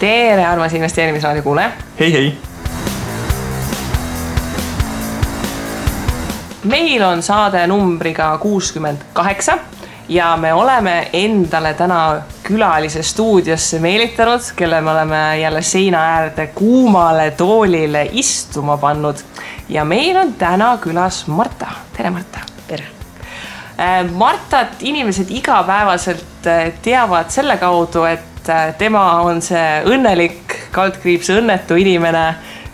Tere, armas investeerimisraadio kuule. Hei. Meil on saade numbriga 68 ja me oleme endale täna külalise stuudiosse meelitanud, kelle me oleme jälle seina äärde kuumale toolile istuma pannud. Ja meil on täna külas Marta. Tere, Marta. Tere. Martat inimesed igapäevaselt teavad selle kaudu, et tema on see õnnelik, kaldkriips õnnetu inimene,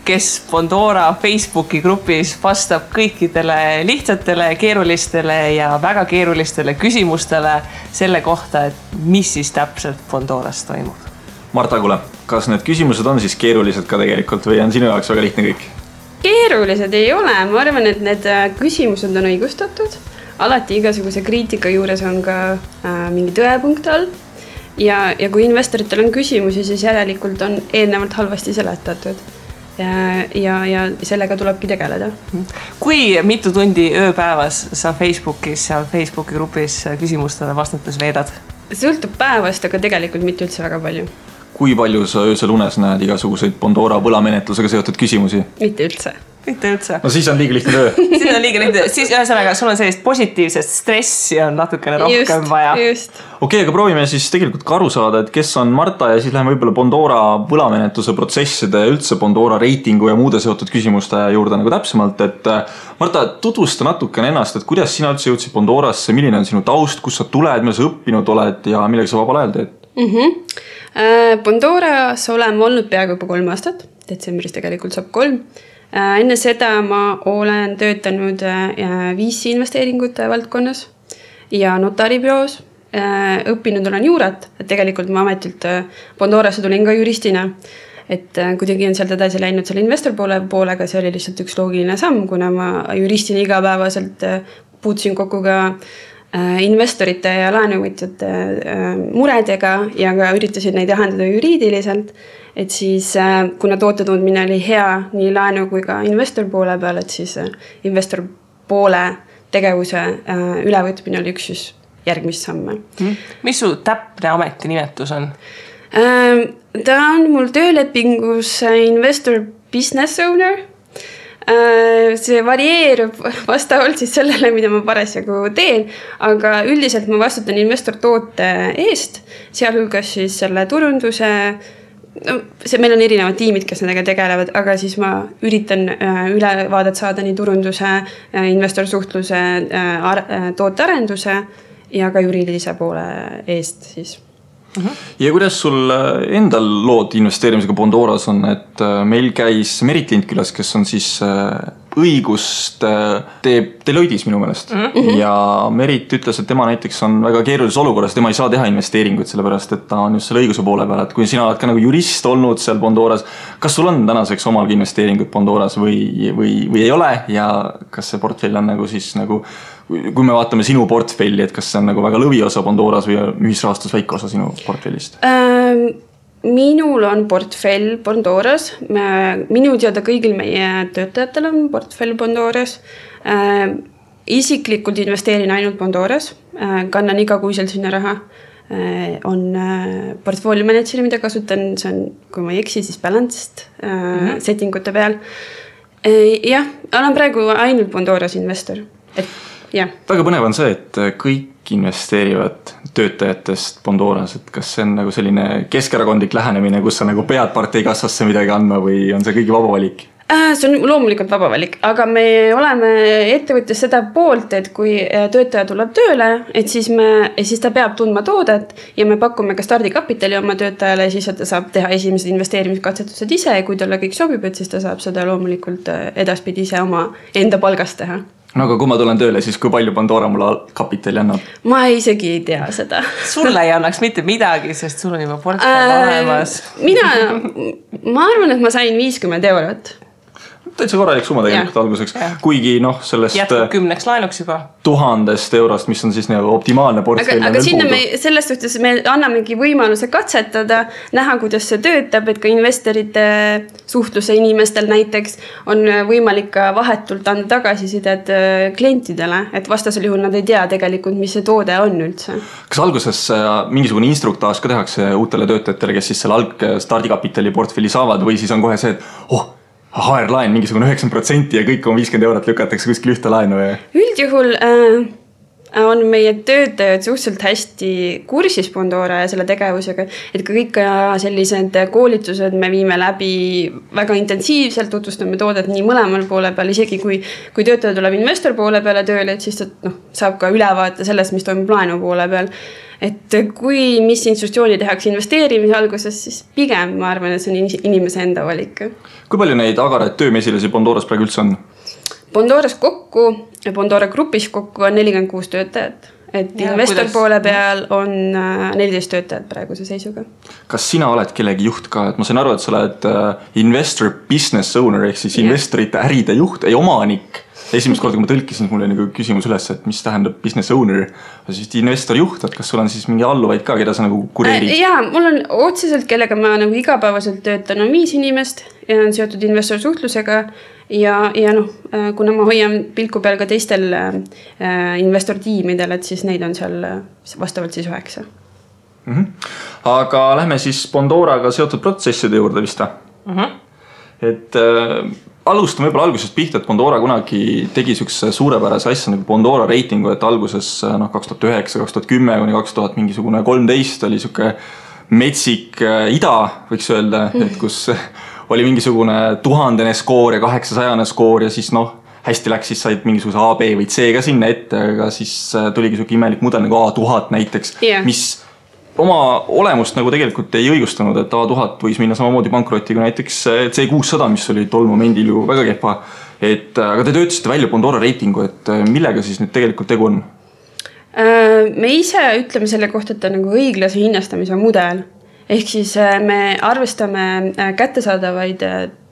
kes Bondora Facebooki grupis vastab kõikidele lihtsatele, keerulistele ja väga keerulistele küsimustele selle kohta, et mis siis täpselt Bondoras toimub. Marta, kuule, kas need küsimused on siis keerulised ka tegelikult või on sinu jaoks väga lihtne kõik? Keerulised ei ole, ma arvan, et need küsimused on õigustatud. Alati igasuguse kriitika juures on ka mingi tõepunkt all. Ja kui investoritel on küsimusi, siis järelikult on eelnevalt halvasti seletatud. Ja sellega tulebki tegeleda. Kui mitu tundi ööpäevas sa Facebookis, seal Facebooki grupis küsimustele vastates veedad? Sõltub päevast, aga tegelikult mitte üldse väga palju. Kui palju sa öösel unes näed igasuguseid Bondora võlamenetlusega seotud küsimusi? Mitte üldse. Mitte üldse. No siis on liiga lihtne töö. Siis on liiga lihtne. Siis ühesõnaga, sul on sellist positiivset stressi on natukene rohkem vaja. Okei, aga proovime siis tegelikult ka aru saada, et kes on Marta ja siis läheme võib-olla Bondora võlamenetluse protsesside ja üldse Bondora reitingu ja muude seotud küsimuste juurde nagu täpsemalt. Et Marta, tutvusta natukene ennast, et kuidas sina üldse jõudsid Bondorasse, milline on sinu taust, kus sa tuled, mida sa õppinud oled ja millega sa vabal ajal teed? Bondoras oleme olnud peaaegu juba 3 aastat, detsembris tegelikult saab 3. Enne seda ma olen töötanud VC investeeringute valdkonnas ja notaribüroos. Õppinud olen juurat, et tegelikult ma ametilt Bondorasse tulin ka juristina. Et kuidagi on sealt edasi läinud selle investor poolega, see oli lihtsalt üks loogiline samm, kuna ma juristina igapäevaselt puutusin kokku ka investorite ja laenuvõtjate muredega ja ka üritasin neid lahendada juriidiliselt. Et siis, kuna toote tundmine oli hea nii laenu kui ka investor poole peal, et siis investor poole tegevuse ülevõtmine oli üks siis järgmist samme. Mis su täpne ametinimetus on? Ta on mul töölepingus investor business owner. See varieerub vastavalt siis sellele, mida ma parasjagu teen, aga üldiselt ma vastutan investor toote eest, sealhulgas siis selle turunduse. Meil on erinevad tiimid, kes nendega tegelevad, aga siis ma üritan ülevaadet saada nii turunduse, investorsuhtluse, tootearenduse ja ka juriidilise poole eest siis. Ja kuidas sul endal lood investeerimisega Bondoras on, et meil käis Merit Lind külas, kes on siis õigust teeb Deloittes minu meelest. Ja Merit ütles, et tema näiteks on väga keerulises olukorras, tema ei saa teha investeeringuid, sellepärast et ta on just selle õiguse poole peal. Et kui sina oled ka nagu jurist olnud seal Bondoras, kas sul on tänaseks omalgi investeeringuid Bondoras või ei ole ja kas see portfell on nagu siis nagu kui me vaatame sinu portfelli, et kas see on nagu väga lõviosa Bondoras või ühisrahastus väike osa sinu portfellist? Minul on portfell Bondoras. Minu teada kõigil meie töötajatel on portfell Bondoras. Isiklikult investeerin ainult Bondoras. Kannan igakuiselt sinna raha. On portfolio manager, mida kasutan. See on, kui ma ei eksi, siis balanced settingute peal. Jah, olen praegu ainult Bondoras investor. Ja. Väga põnev on see, et kõik investeerivad töötajatest Bondoras, et kas see on nagu selline keskerakondlik lähenemine, kus sa nagu pead parteikassasse midagi andma või on see kõigi vaba valik? See on loomulikult vaba valik, aga me oleme ettevõttes seda poolt, et kui töötaja tuleb tööle, et siis ta peab tundma toodet ja me pakume ka stardikapitali oma töötajale, siis ta saab teha esimesed investeerimiskatsetused ise ja kui talle kõik sobib, et siis ta saab seda loomulikult edaspidi ise oma enda palgast teha. No aga kui ma tulen tööle, siis kui palju Bondora mulle kapitali annab? Ma isegi ei tea seda. Sulle ei annaks mitte midagi, sest sul on juba portfell olemas. Ma arvan, et ma sain 50 €. täitsa korralik summa tegelikult alguseks, kuigi sellest jätkub 10 laenuks juba 1000 eurost, mis on siis optimaalne portfell. Aga sinna selles suhtes me annamegi võimaluse katsetada, näha, kuidas see töötab, et ka investorite suhtluse inimestel näiteks on võimalik ka vahetult anda tagasisidet klientidele, et vastasel juhul nad ei tea tegelikult, mis see toode on üldse. Kas alguses mingisugune instruktaaž ka tehakse uutele töötajatele, kes siis selle stardikapitali portfelli saavad või siis on kohe see, et HR-laen mingisugune 90% ja kõik on 50 eurot lükatakse kuskil ühte laenu? Üldjuhul on meie töötajad suhteliselt hästi kursis Bondora ja selle tegevusega, et ka kõik sellised koolitused me viime läbi väga intensiivselt, tutvustame toodet nii mõlemal poole peal, isegi kui töötaja tuleb investor poole peale tööle, et siis ta saab ka ülevaate sellest, mis toimub laenu poole peal. Et kui mis institutsiooni tehakse investeerimise alguses, siis pigem ma arvan, et see on inimese enda valik. Kui palju neid agaraid töömesilasi Bondoras praegu üldse on? Bondoras kokku, Bondora grupis kokku on 46 töötajat. Et investor poole peal on 14 töötajat praeguse seisuga. Kas sina oled kellegi juht ka? Et ma sain aru, et sa oled investor business owner ehk siis investorite äride juht, ei omanik. Esimest korda, kui ma tõlkisin, mul oli küsimus üles, et mis tähendab business owner, siis investor juht, et kas sul on siis mingi alluvaid ka, keda sa kureerid? Jaa, mul on otseselt, kellega ma igapäevaselt töötan, on 5 inimest ja on seotud investor suhtlusega ja kuna ma hoian pilku peal ka teistel investor tiimidel, et siis neid on seal vastavalt siis 9. Aga lähme siis Bondoraga seotud protsesside juurde vist. Et alustame võib-olla algusest pihta, et Bondora kunagi tegi sükse suurepärase asja nagu Bondora reitingu, et alguses 2009, 2010 kuni 2000 mingisugune 13 oli süke metsik ida, võiks öelda, et kus oli mingisugune 1000 skoor ja 800 skoor ja siis hästi läks, siis said mingisuguse A, B või C ka sinna ette, aga siis tuligi süke imelik mudel nagu A1000 näiteks, mis oma olemust nagu tegelikult ei õigustanud, et A1000 võis minna samamoodi pankrotiga näiteks C600, mis oli tol momendil ju väga kehva. Aga te töötasite välja Bondora reitingu, et millega siis nüüd tegelikult tegu on? Me ise ütleme selle kohta, et on nagu õiglase hinnastamise mudel. Ehk siis me arvestame kättesaadavaid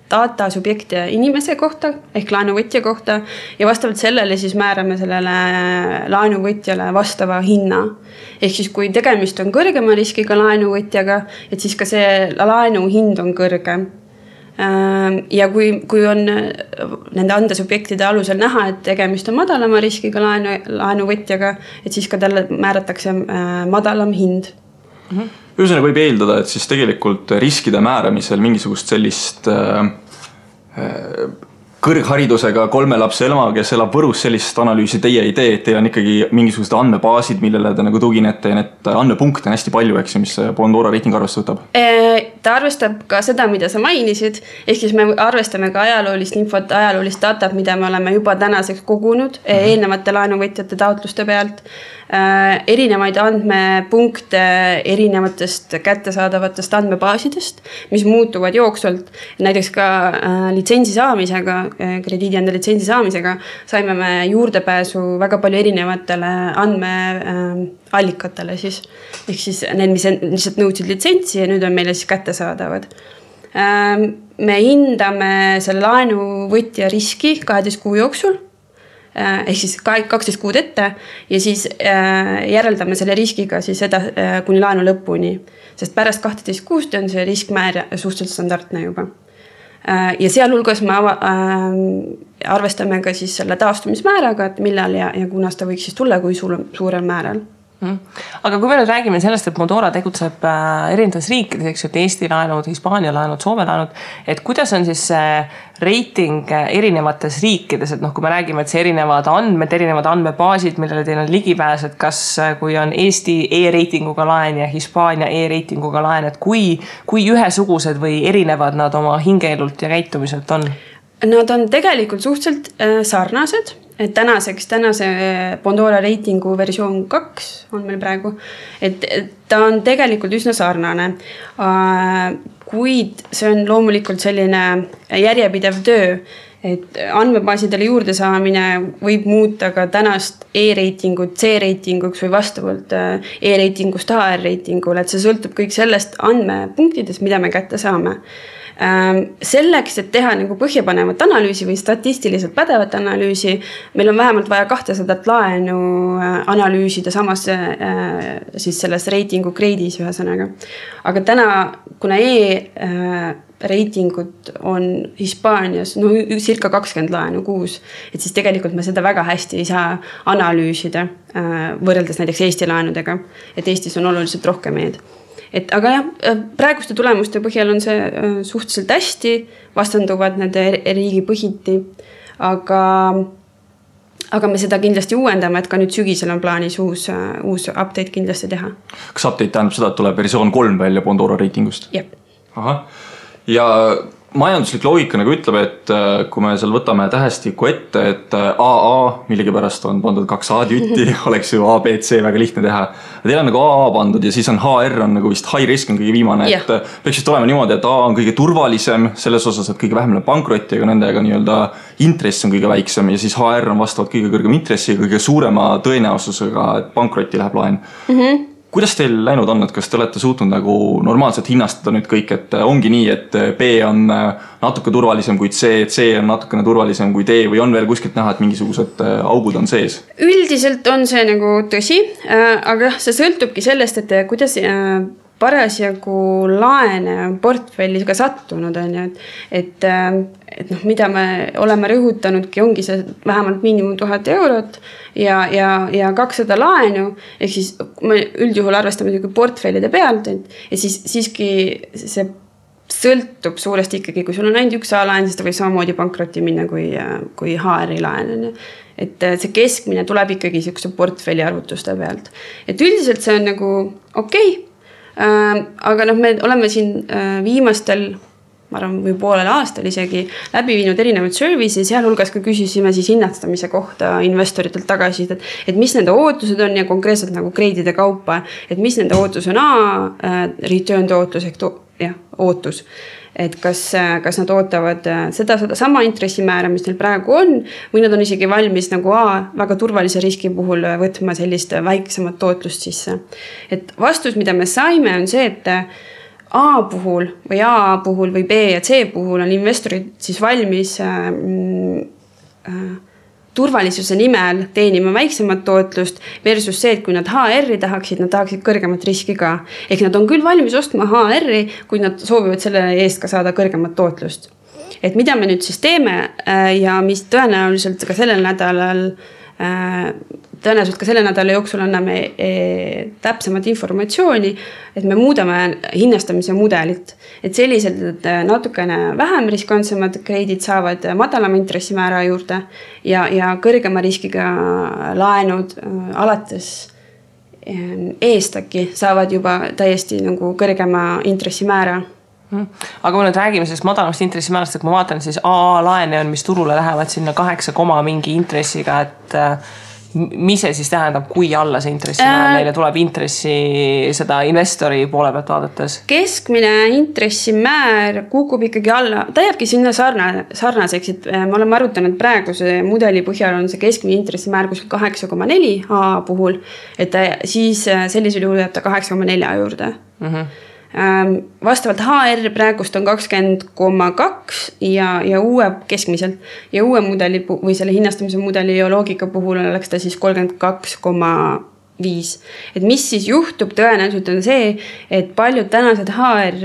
data subjekte inimese kohta ehk laenuvõtja kohta ja vastavalt sellele siis määrame sellele laenuvõtjale vastava hinna. Ehk siis kui tegemist on kõrgema riskiga laenuvõtjaga, et siis ka see laenu hind on kõrgem. Ja kui on nende andesubjektide alusel näha, et tegemist on madalama riskiga laenuvõtjaga, et siis ka talle määratakse madalam hind. Ühesõnaga võib eeldada, et siis tegelikult riskide määramisel mingisugust sellist kõrgharidusega 3 lapse ema, kes elab Võrus, sellist analüüsi teie ei tee, et teil on ikkagi mingisugused andmebaasid, millele te nagu tuginete ja need andmepunkte on hästi palju, eks, mis Bondora reiting arvesse võtab? Ta arvestab ka seda, mida sa mainisid, ehk siis me arvestame ka ajaloolist infot, ajaloolist datat, mida me oleme juba tänaseks kogunud eelnevate laenuvõtjate taotluste pealt, erinevaid andmepunkte erinevatest kättesaadavatest andmebaasidest, mis muutuvad jooksvalt. Näiteks ka litsentsi saamisega, krediidiande litsentsi saamisega saime me juurdepääsu väga palju erinevatele andmeallikatele siis. Ehk siis need, mis lihtsalt nõudsid litsentsi ja nüüd on meile siis kättesaadavad. Me hindame selle laenuvõtja riski 12 kuu jooksul, ehk siis 12 kuud ette ja siis järeldame selle riskiga siis seda kuni laenu lõpuni, sest pärast 12 kuust on see riskmäär suhteliselt standardne juba. Ja sealhulgas me arvestame ka siis selle taastumismääraga, et millal ja kunas ta võiks siis tulla, kui suurel määral. Aga kui me nüüd räägime sellest, et Bondora tegutseb erinevates riikides, eks ju, et Eesti laenud, Hispaania laenud, Soome laenud, et kuidas on siis reiting erinevates riikides, et kui me räägime, et see erinevad andmed, erinevad andmebaasid, millele teil on ligipääs, et kas kui on Eesti e-reitinguga laen ja Hispaania e-reitinguga laen, et kui ühesugused või erinevad nad oma hingeelult ja käitumiselt on? Nad on tegelikult suhteliselt sarnased, et tänase Bondora reitingu versioon 2 on meil praegu, et ta on tegelikult üsna sarnane, kuid see on loomulikult selline järjepidev töö, et andmebaasidele juurde saamine võib muuta ka tänast e-reitingut C-reitinguks või vastavalt e-reitingust HR-reitingule, et see sõltub kõik sellest andmepunktidest, mida me kätte saame. Selleks, et teha nagu põhjapanevat analüüsi või statistiliselt pädevat analüüsi, meil on vähemalt vaja 200 laenu analüüsida samas siis selles reitingu kreidis ühesõnaga. Aga täna, kuna reitingud on Hispaanias circa 20 laenu kuus, et siis tegelikult me seda väga hästi ei saa analüüsida võrreldes näiteks Eesti laenudega, et Eestis on oluliselt rohkem aga jah, praeguste tulemuste põhjal on see suhteliselt hästi, vastanduvad nende riigi põhiti, aga me seda kindlasti uuendame, et ka nüüd sügisel on plaanis uus update kindlasti teha. Kas update tähendab seda, et tuleb versioon 3 välja Bondora reitingust? Jep. Ahah. Ja majanduslik loogika nagu ütleb, et kui me seal võtame tähestiku ette, et AA millegipärast on pandud 2 A-tütti, oleks ju A, B, C väga lihtne teha. Teil on nagu AA pandud ja siis on HR on nagu vist high risk on kõige viimane, et peaks vist olema niimoodi, et A on kõige turvalisem selles osas, et kõige vähem pankrotti, aga nendega nii-öelda intress on kõige väiksem ja siis HR on vastavalt kõige kõrgem intressi ja kõige suurema tõenäosusega, et pankrotti läheb laen. Kuidas teil läinud on, et kas te olete suutnud nagu normaalselt hinnastada nüüd kõik, et ongi nii, et B on natuke turvalisem kui C, C on natukene turvalisem kui D või on veel kuskilt näha, et mingisugused augud on sees? Üldiselt on see nagu tõsi, aga see sõltubki sellest, et kuidas parasjagu laene portfellis ka sattunud on ju, et mida me oleme rõhutanudki, ongi see vähemalt miinimum 1000 eurot ja 200 laenu, ehk siis me üldjuhul arvestame portfellide pealt, et siis siiski see sõltub suuresti ikkagi, kui sul on ainult üks A-laen, siis ta võib samamoodi pankrotti minna kui HR-i laen. Et see keskmine tuleb ikkagi sellise portfelli arvutuste pealt. Et üldiselt see on nagu okei. Aga me oleme siin viimastel, ma arvan, või poolel aastal isegi läbi viinud erinevaid service'i, sealhulgas ka küsisime siis hinnastamise kohta investoritelt tagasi, et mis nende ootused on ja konkreetselt nagu kreidide kaupa, et mis nende ootus on return tootlus ehk ootus. Et kas nad ootavad seda sama intressimäära, mis neil praegu on, või nad on isegi valmis nagu väga turvalise riski puhul võtma sellist väiksemat tootlust sisse. Et vastus, mida me saime, on see, et A puhul või A puhul või B ja C puhul on investorid siis valmis turvalisuse nimel teenima väiksemat tootlust versus see, et kui nad HR-i tahaksid, nad tahaksid kõrgemat riski ka. Ehk nad on küll valmis ostma HR-i, kui nad soovivad selle eest ka saada kõrgemat tootlust. Et mida me nüüd siis teeme ja mis tõenäoliselt ka selle nädala jooksul anname täpsemat informatsiooni, et me muudame hinnastamise mudelit. Et selliselt, et natukene vähem riskantsemad kreidid saavad madalama intressimäära juurde ja kõrgema riskiga laenud alates eestaki saavad juba täiesti nagu kõrgema intressimäära. Aga kui nüüd räägime sellest madalamast intressimäärast, et kui ma vaatan, siis AA laene on, mis turule lähevad sinna 8, mingi intressiga, et mis see siis tähendab, kui alla see intressimäär neile tuleb intressi seda investori poole pealt vaadates? Keskmine intressimäär kukub ikkagi alla, ta jääbki sinna sarnaseks, et me oleme arutanud praeguse mudeli põhjal on see keskmine intressimäär kuskil 8,4 A puhul, et siis sellisel juhul jääb ta 8,4 juurde. Vastavalt HR praegust on 20,2 ja uue keskmiselt ja uue mudeli või selle hinnastamise mudeli ja loogika puhul oleks ta siis 32,5. Et mis siis juhtub tõenäoliselt on see, et paljud tänased HR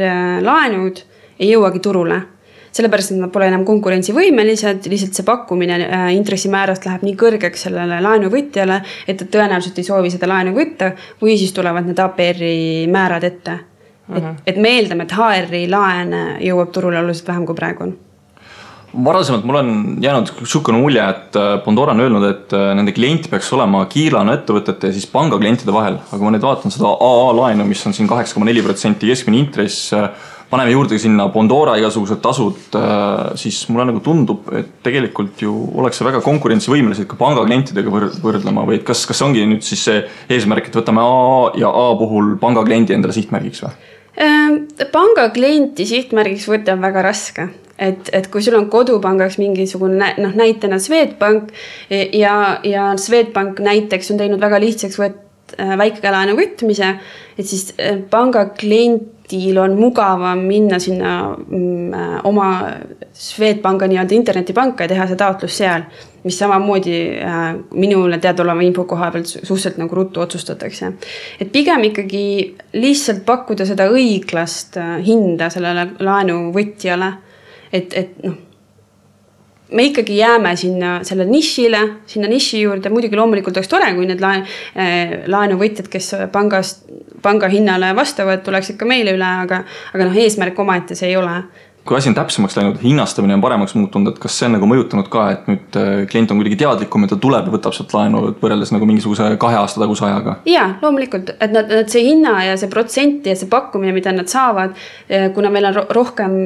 laenud ei jõuagi turule. Sellepärast, et nad pole enam konkurentsivõimelised, lihtsalt see pakkumine intressimäärast läheb nii kõrgeks sellele laenuvõtjale, et tõenäoliselt ei soovi seda laenu võtta või siis tulevad need APR-i määrad ette. Et me eeldame, et HR-i laen jõuab turule oluliselt vähem kui praegu on. Varasemalt mul on jäänud šukane mulje, et Bondora on öelnud, et nende klient peaks olema kiirlaenu ettevõtete ja siis panga klientide vahel. Aga ma nüüd vaatan seda AA laenu, mis on siin 8,4% keskmine intress, paneme juurde sinna Bondora igasugused tasud, siis mulle nagu tundub, et tegelikult ju oleks see väga konkurentsivõimelised ka panga klientidega võrdlema või kas ongi nüüd siis see eesmärk, et võtame A ja A puhul panga kliendi endale sihtmärgiks või? Panga klienti sihtmärgiks võtta on väga raske. Et kui sul on kodupangaks mingisugune näitena Swedbank ja Swedbank näiteks on teinud väga lihtsaks väikelaenu võtmise, et siis panga klientil on mugavam minna sinna oma Swedbanka nii-öelda internetipanka ja teha see taotlus seal, mis samamoodi minule teadoleva info koha pealt suhteliselt nagu ruttu otsustatakse. Et pigem ikkagi lihtsalt pakkuda seda õiglast hinda sellele laenuvõtjale, et noh, me ikkagi jääme selle niši juurde, muidugi loomulikult oleks tore, kui need laenuvõtjad, kes panga hinnale vastavad, tuleks ikka meile üle, aga eesmärk omaette see ei ole. Kui asi on täpsemaks läinud, hinnastamine on paremaks muutunud, et kas see on nagu mõjutanud ka, et nüüd klient on kuidagi teadlikum, et ta tuleb ja võtab sealt laenu võrreldes nagu mingisuguse 2 aasta taguse ajaga? Jaa, loomulikult, et nad see hinna ja see protsenti ja see pakkumine, mida nad saavad, kuna meil on rohkem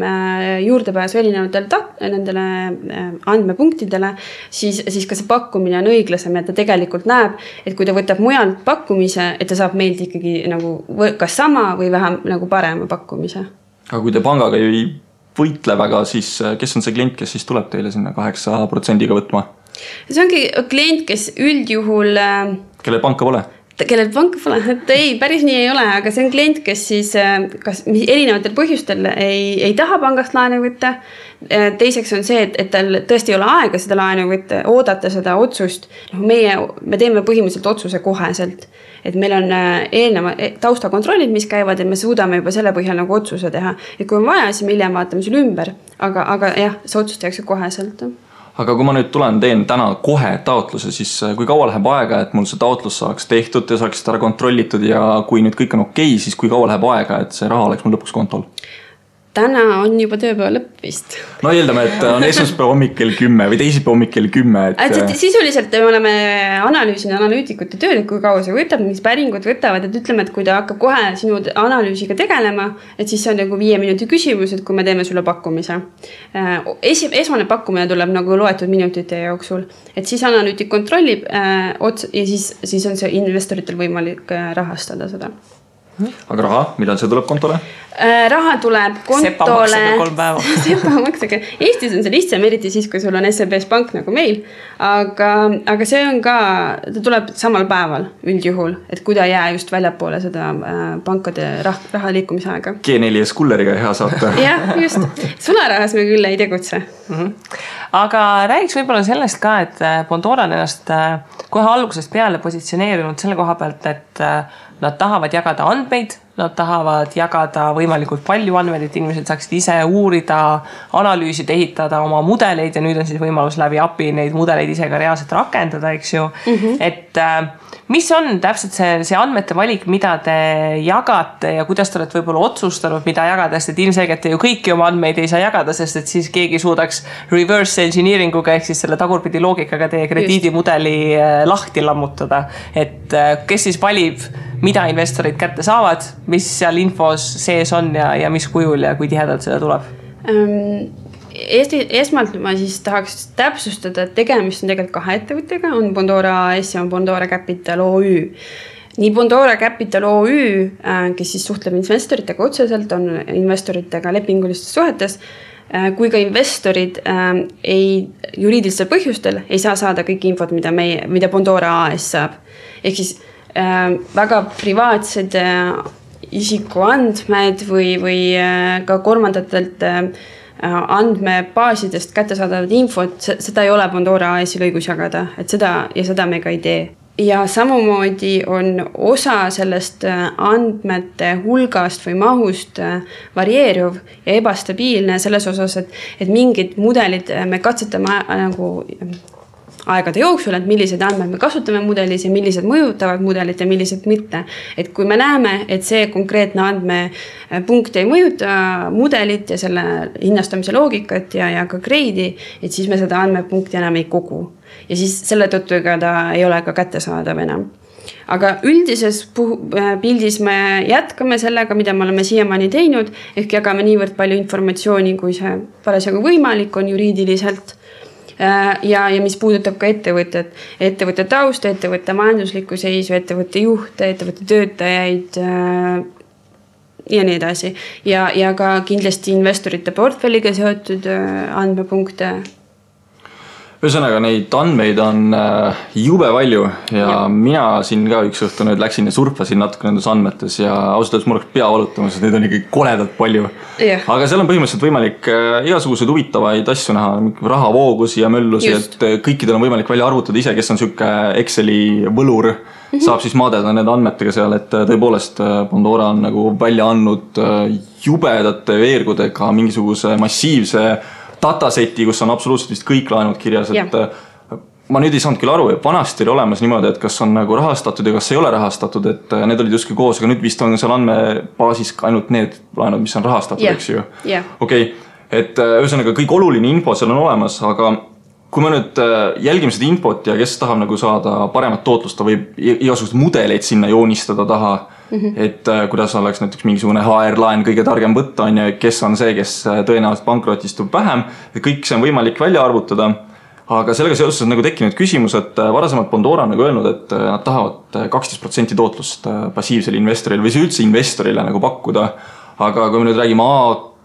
juurdepääsu nendele andmepunktidele, siis ka see pakkumine on õiglasem, et ta tegelikult näeb, et kui ta võtab mujalt pakkumise, et ta saab meilt ikkagi nagu kas sama või vähem nagu parema pakkumise. Aga kui te pangaga ei võitle väga, siis kes on see klient, kes siis tuleb teile sinna 8% võtma? See ongi klient, kes üldjuhul... Kellel panka pole? Kellel panka pole, et ei, päris nii ei ole, aga see on klient, kes siis kas erinevatel põhjustel ei taha pangast laenu võtta. Teiseks on see, et tal tõesti ei ole aega seda laenu võtta, oodata seda otsust. Me teeme põhimõtteliselt otsuse koheselt. Et meil on eelneva taustakontrollid, mis käivad, et me suudame juba selle põhjal nagu otsuse teha. Et kui on vaja, siis me hiljem vaatame selle ümber. Aga jah, see otsus tehakse koheselt. Aga kui ma nüüd teen täna kohe taotluse, siis kui kaua läheb aega, et mul see taotlus saaks tehtud ja saaks ära kontrollitud ja kui nüüd kõik on okei, siis kui kaua läheb aega, et see raha oleks mul lõpuks kontol? Täna on juba tööpäeva lõpp vist. No eeldame, et on esmaspäeva hommik kell 10 või teisipäeva hommik kell 10. Sisuliselt me oleme analüütikute tööd, et kui kaua see võtab, mis päringud võtavad, et ütleme, et kui ta hakkab kohe sinu analüüsiga tegelema, et siis see on nagu 5 minuti küsimus, et kui me teeme sulle pakkumise. Esmane pakkumine tuleb nagu loetud minutite jooksul, et siis analüütik kontrollib ja siis on see investoritel võimalik rahastada seda. Aga raha, millal see tuleb kontole? Raha tuleb kontole... Sepa-maksega 3 päeva. Sepa-maksega. Eestis on see lihtsam, eriti siis, kui sul on SEBs pank nagu meil. Aga see on ka, ta tuleb samal päeval üldjuhul, et kui ta jää just väljapoole seda pankade raha liikumisaega. G4S kulleriga hea saata. Jah, just. Sularahas me küll ei tegutse. Aga räägiks võib-olla sellest ka, et Bondora on ennast kohe algusest peale positsioneerinud selle koha pealt, et nad tahavad jagada andmeid, nad tahavad jagada võimalikult palju andmeid, et inimesed saaksid ise uurida, analüüsid, ehitada oma mudeleid ja nüüd on siis võimalus läbi API neid mudeleid ise ka reaalselt rakendada, eks ju. Et mis on täpselt see andmete valik, mida te jagate ja kuidas te olete võib-olla otsustanud, mida jagada, sest et ilmselgelt te ju kõiki oma andmeid ei saa jagada, sest et siis keegi suudaks reverse engineeringuga ehk siis selle tagurpidi loogikaga teie krediidimudeli lahti lammutada. Et kes siis valib, mida investorid kätte saavad, mis seal infos sees on ja mis kujul ja kui tihedalt seda tuleb? Esmalt ma siis tahaks täpsustada, et tegemist on tegelikult 2 ettevõttega, on Bondora AS ja on Bondora Capital OÜ. Nii Bondora Capital OÜ, kes siis suhtleb investoritega otseselt, on investoritega lepingulistes suhetes, kui ka investorid juriidilistel põhjustel ei saa saada kõik infot, mida Bondora AS saab. Ehk siis väga privaatsed isikuandmed või ka kolmandatelt andmebaasidest kättesaadavat infot, seda ei ole Bondora AS-il õigus jagada, et seda me ka ei tee. Ja samamoodi on osa sellest andmete hulgast või mahust varieeruv ja ebastabiilne selles osas, et mingid mudelid me katsetame nagu aegade jooksul, et millised andmed me kasutame mudelis ja millised mõjutavad mudelit ja millised mitte. Et kui me näeme, et see konkreetne andmepunkt ei mõjuta mudelit ja selle hinnastamise loogikat ja ka grade'i, et siis me seda andmepunkti enam ei kogu. Ja siis selle tõttu ega ta ei ole ka kättesaadav enam. Aga üldises pildis me jätkame sellega, mida me oleme siiamaani teinud, ehk jagame niivõrd palju informatsiooni, kui see parasjagu võimalik on juriidiliselt. Ja mis puudutab ka ettevõtte taust, ettevõtte majanduslikku seisu, ettevõtte juhte, ettevõtte töötajaid ja nii edasi. Ja ka kindlasti investorite portfelliga seotud andmepunkte. Ühesõnaga, neid andmeid on jube palju ja mina siin ka üks õhtu nüüd läksin ja surfasin natuke nendes andmetes ja ausalt mul oleks pea valutamas, et neid on ikkagi koledalt palju. Aga seal on põhimõtteliselt võimalik igasuguseid huvitavaid asju näha, rahavoogusi ja möllusi, et kõikidel on võimalik välja arvutada ise, kes on siuke Exceli võlur, saab siis maadeda need andmetega seal, et tõepoolest Pandora on nagu välja andnud jubedate veergudega mingisuguse massiivse dataseti, kus on absoluutselt vist kõik laenud kirjas, et ma nüüd ei saanud küll aru, et vanasti oli olemas niimoodi, et kas on nagu rahastatud ja kas ei ole rahastatud, et need olid justkui koos, aga nüüd vist on seal andmebaasis ainult need laenud, mis on rahastatud, eks ju. Okei, et ühesõnaga kõik oluline info seal on olemas, aga kui me nüüd jälgime seda infot ja kes tahab nagu saada paremat tootlust, ta võib igasugust mudeleid sinna joonistada taha, et kuidas oleks näiteks mingisugune HR-laen kõige targem võtta on ja kes on see, kes tõenäoliselt pankrotistub vähem, et kõik see on võimalik välja arvutada, aga sellega seoses on nagu tekkinud küsimus, et varasemalt Pandora on nagu öelnud, et nad tahavad 12% tootlust passiivsele investorile või see üldse investorile nagu pakkuda, aga kui me nüüd räägime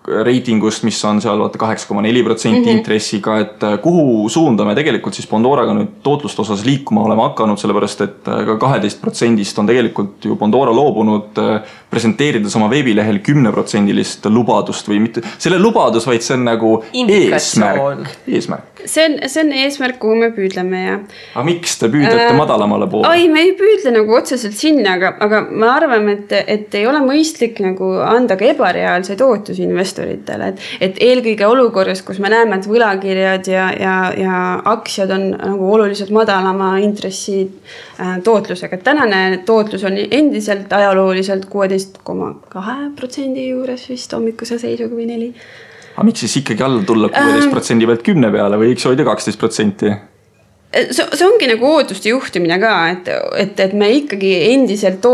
reitingust, mis on seal 8,4% intressiga, et kuhu suunda me tegelikult siis Pandoraga nüüd tootlust osas liikuma oleme hakanud, sellepärast et ka 12% on tegelikult ju Pandora loobunud presenteerides oma veebilehel 10% lubadust või mitte selle lubadus, vaid see on nagu eesmärk. See on eesmärk, kuhu me püüdleme ja. Aga miks te püüdlete madalamale poole? Ai, me ei püüdle nagu otseselt sinna, aga me arvame, et ei ole mõistlik nagu anda ka ebareaalseid ootusi investoritele, et eelkõige olukorras, kus me näeme, et võlakirjad ja aktsiad on nagu oluliselt madalama intressi tootlusega. Tänane tootlus on endiselt ajalooliselt 16,2% juures vist hommikuse seisuga või 4%. Aga miks siis ikkagi alla tulla 16% pealt 10 peale või võiks hoida 12%? See ongi nagu ootuste juhtimine ka, et me ikkagi endiselt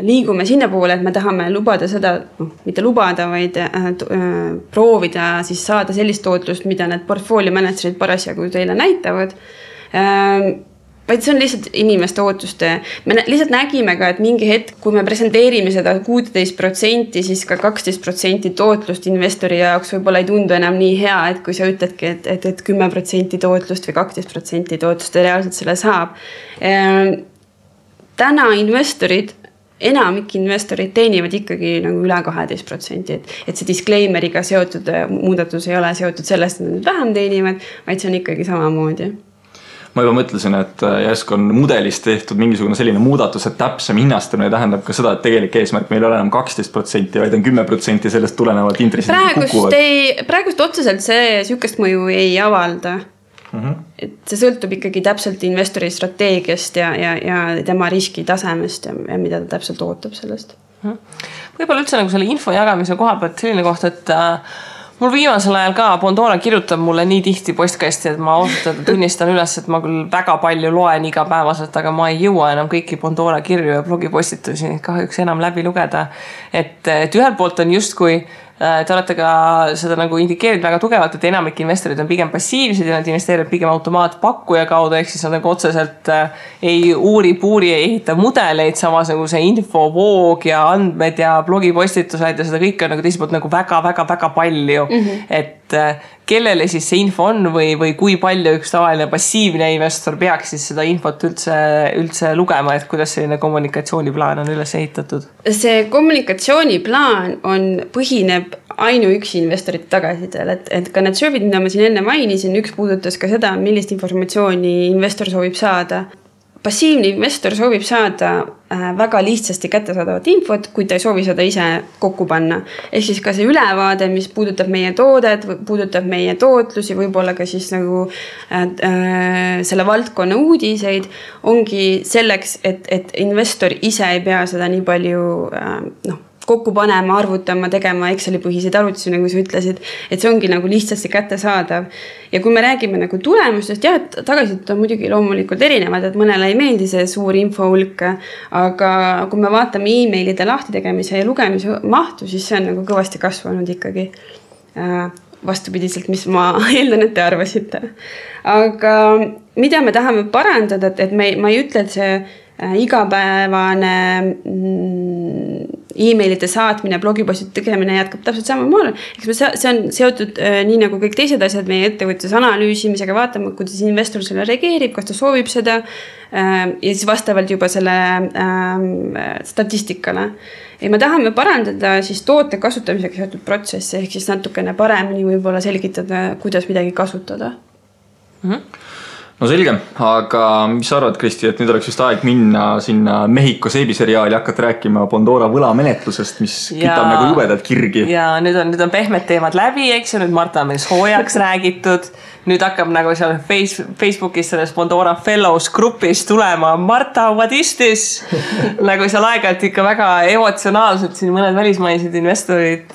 liigume sinna poole, et me tahame lubada seda, mitte lubada, vaid proovida siis saada sellist tootlust, mida need portfolio managerid parasjagu teile näitavad. Vaid see on lihtsalt inimeste ootuste. Me lihtsalt nägime ka, et mingi hetk, kui me presenteerime seda 16%, siis ka 12% tootlust investori jaoks võib-olla ei tundu enam nii hea, et kui sa ütledki, et 10% tootlust või 12% tootlust reaalselt selle saab. Täna investorid, enamik investorid teenivad ikkagi nagu üle 12%, et see disclaimeriga seotud muudatus ei ole seotud sellest, et nad vähem teenivad, vaid see on ikkagi samamoodi. Ma juba mõtlesin, et järsku on mudelist tehtud mingisugune selline muudatus, et täpsem hinnastamine tähendab ka seda, et tegelik eesmärk meil ei ole enam 12%, vaid on 10% sellest tulenevad intressid kukuvad. Praegust otseselt see sükest mõju ei avalda. Et see sõltub ikkagi täpselt investori strateegiast ja tema riski tasemest ja mida ta täpselt ootab sellest. Võib-olla üldse nagu selle info jagamise koha pealt selline koht, et mul viimasel ajal ka Pandora kirjutab mulle nii tihti postkasti, et ma ausalt tunnistan üles, et ma küll väga palju loen igapäevaselt, aga ma ei jõua enam kõiki Pandora kirju ja blogipostitusi kahjuks enam läbi lugeda. Et ühelt poolt on justkui te olete ka seda nagu indikeerinud väga tugevalt, et enamik investorid on pigem passiivsed ja nad investeerivad pigem automaatpakkuja kaudu, ehk siis nad nagu otseselt ei uuri-puuri, ei ehita mudeleid, samas nagu see infovoog ja andmed ja blogipostitused ja seda kõik on nagu teiselt poolt nagu väga palju. Et kellele siis see info on või kui palju üks tavaline passiivne investor peaks siis seda infot üldse lugema, et kuidas selline kommunikatsiooniplaan on üles ehitatud? See kommunikatsiooniplaan põhineb ainuüksi investorite tagasidel, et ka need surveid, mida ma siin enne mainisin, üks puudutas ka seda, millist informatsiooni investor soovib saada. Passiivne investor soovib saada väga lihtsasti kättesaadavat infot, kui ta ei soovi seda ise kokku panna. Ehk siis ka see ülevaade, mis puudutab meie toodet, puudutab meie tootlusi, võib-olla ka siis nagu selle valdkonna uudiseid, ongi selleks, et investor ise ei pea seda nii palju kokku panema, arvutama, tegema Exceli põhiseid arvutusi, nagu sa ütlesid, et see ongi nagu lihtsasti kättesaadav. Ja kui me räägime nagu tulemustest, tagasisid on muidugi loomulikult erinevad, et mõnele ei meeldi see suur infohulk, aga kui me vaatame e-mailide lahtitegemise ja lugemise mahtu, siis see on nagu kõvasti kasvanud ikkagi vastupidiselt, mis ma eeldan, et te arvasite. Aga mida me tahame parandada, et ma ei ütle, et see igapäevane emailide saatmine, blogipostide tegemine jätkab täpselt samamoodi. See on seotud nii nagu kõik teised asjad meie ettevõttes analüüsimisega, vaatama, kuidas investor selle reageerib, kas ta soovib seda ja siis vastavalt juba selle statistikale. Ja me tahame parandada siis toote kasutamisega seotud protsessi, ehk siis natukene paremini võib-olla selgitada, kuidas midagi kasutada. No selge, aga mis sa arvad, Kristi, et nüüd oleks vist aeg minna sinna Mehhiko seebiseriaali hakata rääkima Pandora võlamenetlusest, mis kütab nagu jubedalt kirgi. Ja nüüd on pehmed teemad läbi, eks ju, nüüd Marta on meil soojaks räägitud. Nüüd hakkab nagu seal Facebookis selles Pandora Fellows grupis tulema Marta, what is this? Nagu seal aeg-ajalt ikka väga emotsionaalselt siin mõned välismaised investorid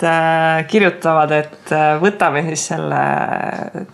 kirjutavad, et võtame siis selle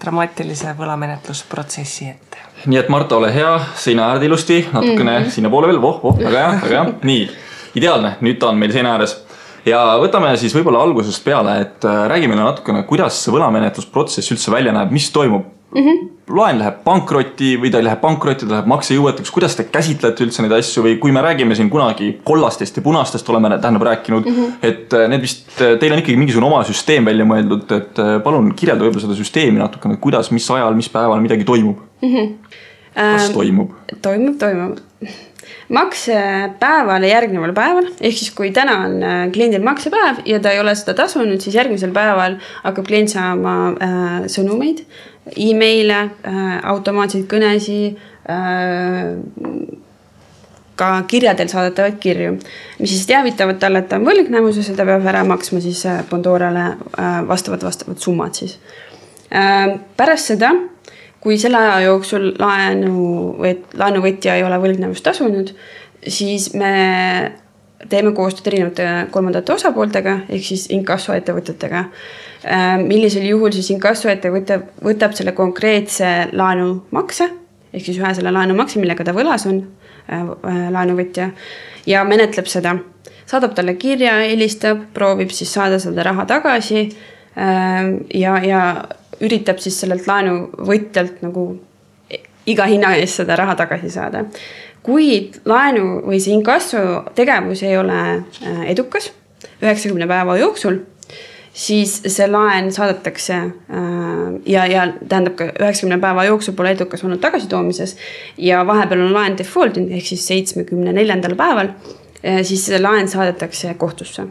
dramaatilise võlamenetlusprotsessi ette. Nii et Marta, ole hea, seina äärde ilusti, natukene sinna poole veel, väga hea. Nii, ideaalne, nüüd ta on meil seina ääres. Ja võtame siis võib-olla algusest peale, et räägi meile natukene, kuidas see võlamenetlusprotsess üldse välja näeb, mis toimub. Laen läheb pankrotti või ta ei läheb pankrotti, ta läheb maksejõuetuks, kuidas te käsitlete üldse neid asju või kui me räägime siin kunagi kollastest ja punastest oleme rääkinud, et need vist, teil on ikkagi mingisugune oma süsteem välja mõeldud, et palun kirjelda võib-olla seda süsteemi natukene, kuidas, mis ajal, mis päeval midagi toimub. Kas toimub? Toimub. Maksepäevale järgneval päeval, ehk siis kui täna on kliendil maksepäev ja ta ei ole seda tasunud, siis järgmisel päeval hakkab klient saama sõnumeid, e-maile, automaatseid kõnesi, ka kirjadel saadetavad kirju, mis siis teavitavad talle, et ta on võlgnevuses ja ta peab ära maksma siis Pandorale vastavad summad siis. Pärast seda, kui selle aja jooksul laenuvõtja ei ole võlgnevust tasunud, siis me teeme koostööd erinevate kolmandate osapooltega, ehk siis inkassoettevõtetega. Millisel juhul siis inkassoettevõte võtab selle konkreetse laenumakse, ehk siis ühe selle laenumakse, millega ta võlas on laenuvõtja, ja menetleb seda. Saadab talle kirja, helistab, proovib siis saada seda raha tagasi ja üritab siis sellelt laenuvõtjalt nagu iga hinna eest seda raha tagasi saada. Kui laenu või see inkasso tegevus ei ole edukas 90 päeva jooksul, siis see laen saadetakse ja tähendab ka 90 päeva jooksul pole edukas olnud tagasitoomises ja vahepeal on laen defaultinud ehk siis 74. päeval, siis see laen saadetakse kohtusse.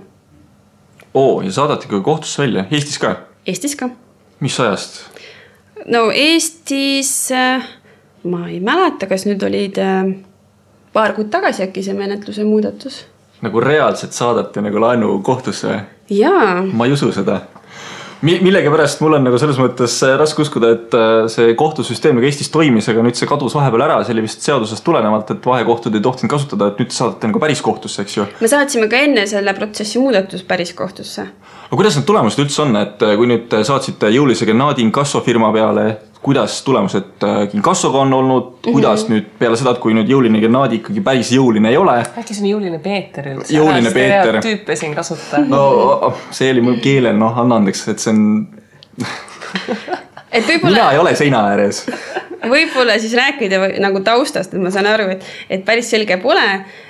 Ja saadati ka kohtusse välja? Eestis ka? Eestis ka. Mis ajast? No Eestis, ma ei mäleta, kas nüüd olid paar kuud tagasi äkki see menetluse muudatus. Nagu reaalselt saadati nagu laenu kohtusse? Jaa. Ma ei usu seda. Millega pärast mul on nagu selles mõttes raske uskuda, et see kohtusüsteem nagu Eestis toimis, aga nüüd see kadus vahepeal ära, see oli vist seadusest tulenevalt, et vahekohtud ei tohtinud kasutada, et nüüd saadate nagu päris kohtusse, eks ju? Me saatsime ka enne selle protsessi muudatus päris kohtusse. Aga kuidas need tulemused üldse on, et kui nüüd saatsite jõulise Gennadi inkassofirma peale, kuidas tulemused inkassoga on olnud, kuidas nüüd peale seda, kui nüüd jõuline Gennadi ikkagi päris jõuline ei ole? Äkki see on jõuline Peeter üldse? Jõuline Peeter. Tüüpe siin kasuta. No see oli mul keelel, anna andeks, et see on... Mina ei ole seina ääres. Võib-olla siis rääkida nagu taustast, et ma saan aru, et päris selge pole,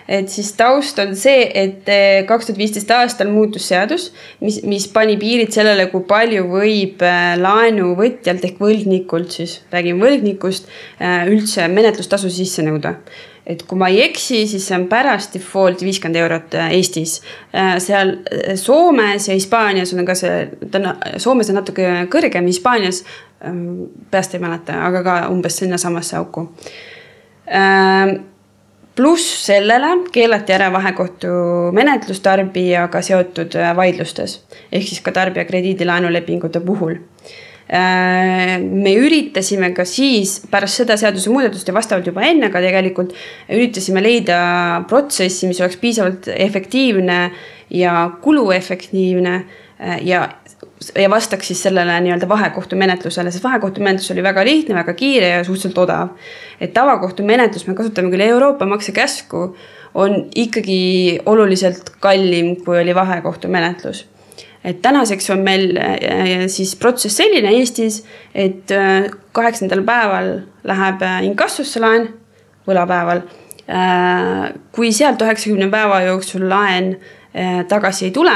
et siis taust on see, et 2015 aastal muutus seadus, mis pani piirid sellele, kui palju võib laenuvõtjalt ehk võlgnikult, siis räägin võlgnikust, üldse menetlustasu sisse nõuda. Et kui ma ei eksi, siis see on pärast default 50 eurot Eestis. Seal Soomes ja Hispaanias on ka Soomes on natuke kõrgem, Hispaanias peast ei mäleta, aga ka umbes sinna samasse auku. Pluss sellele keelati ära vahekohtu menetlus tarbijaga seotud vaidlustes, ehk siis ka tarbija krediidilaenulepingute puhul. Me üritasime ka siis pärast seda seaduse muudatust ja vastavalt juba enne ka tegelikult üritasime leida protsessi, mis oleks piisavalt efektiivne ja kuluefektiivne ja vastaks siis sellele nii-öelda vahekohtu menetlusele, sest vahekohtu menetlus oli väga lihtne, väga kiire ja suhteliselt odav. Et tavakohtu menetlus, me kasutame küll Euroopa maksekäsku, on ikkagi oluliselt kallim, kui oli vahekohtu menetlus. Et tänaseks on meil siis protsess selline Eestis, et 8. päeval läheb inkassusse laen, võlapäeval. Kui sealt 90 päeva jooksul laen tagasi ei tule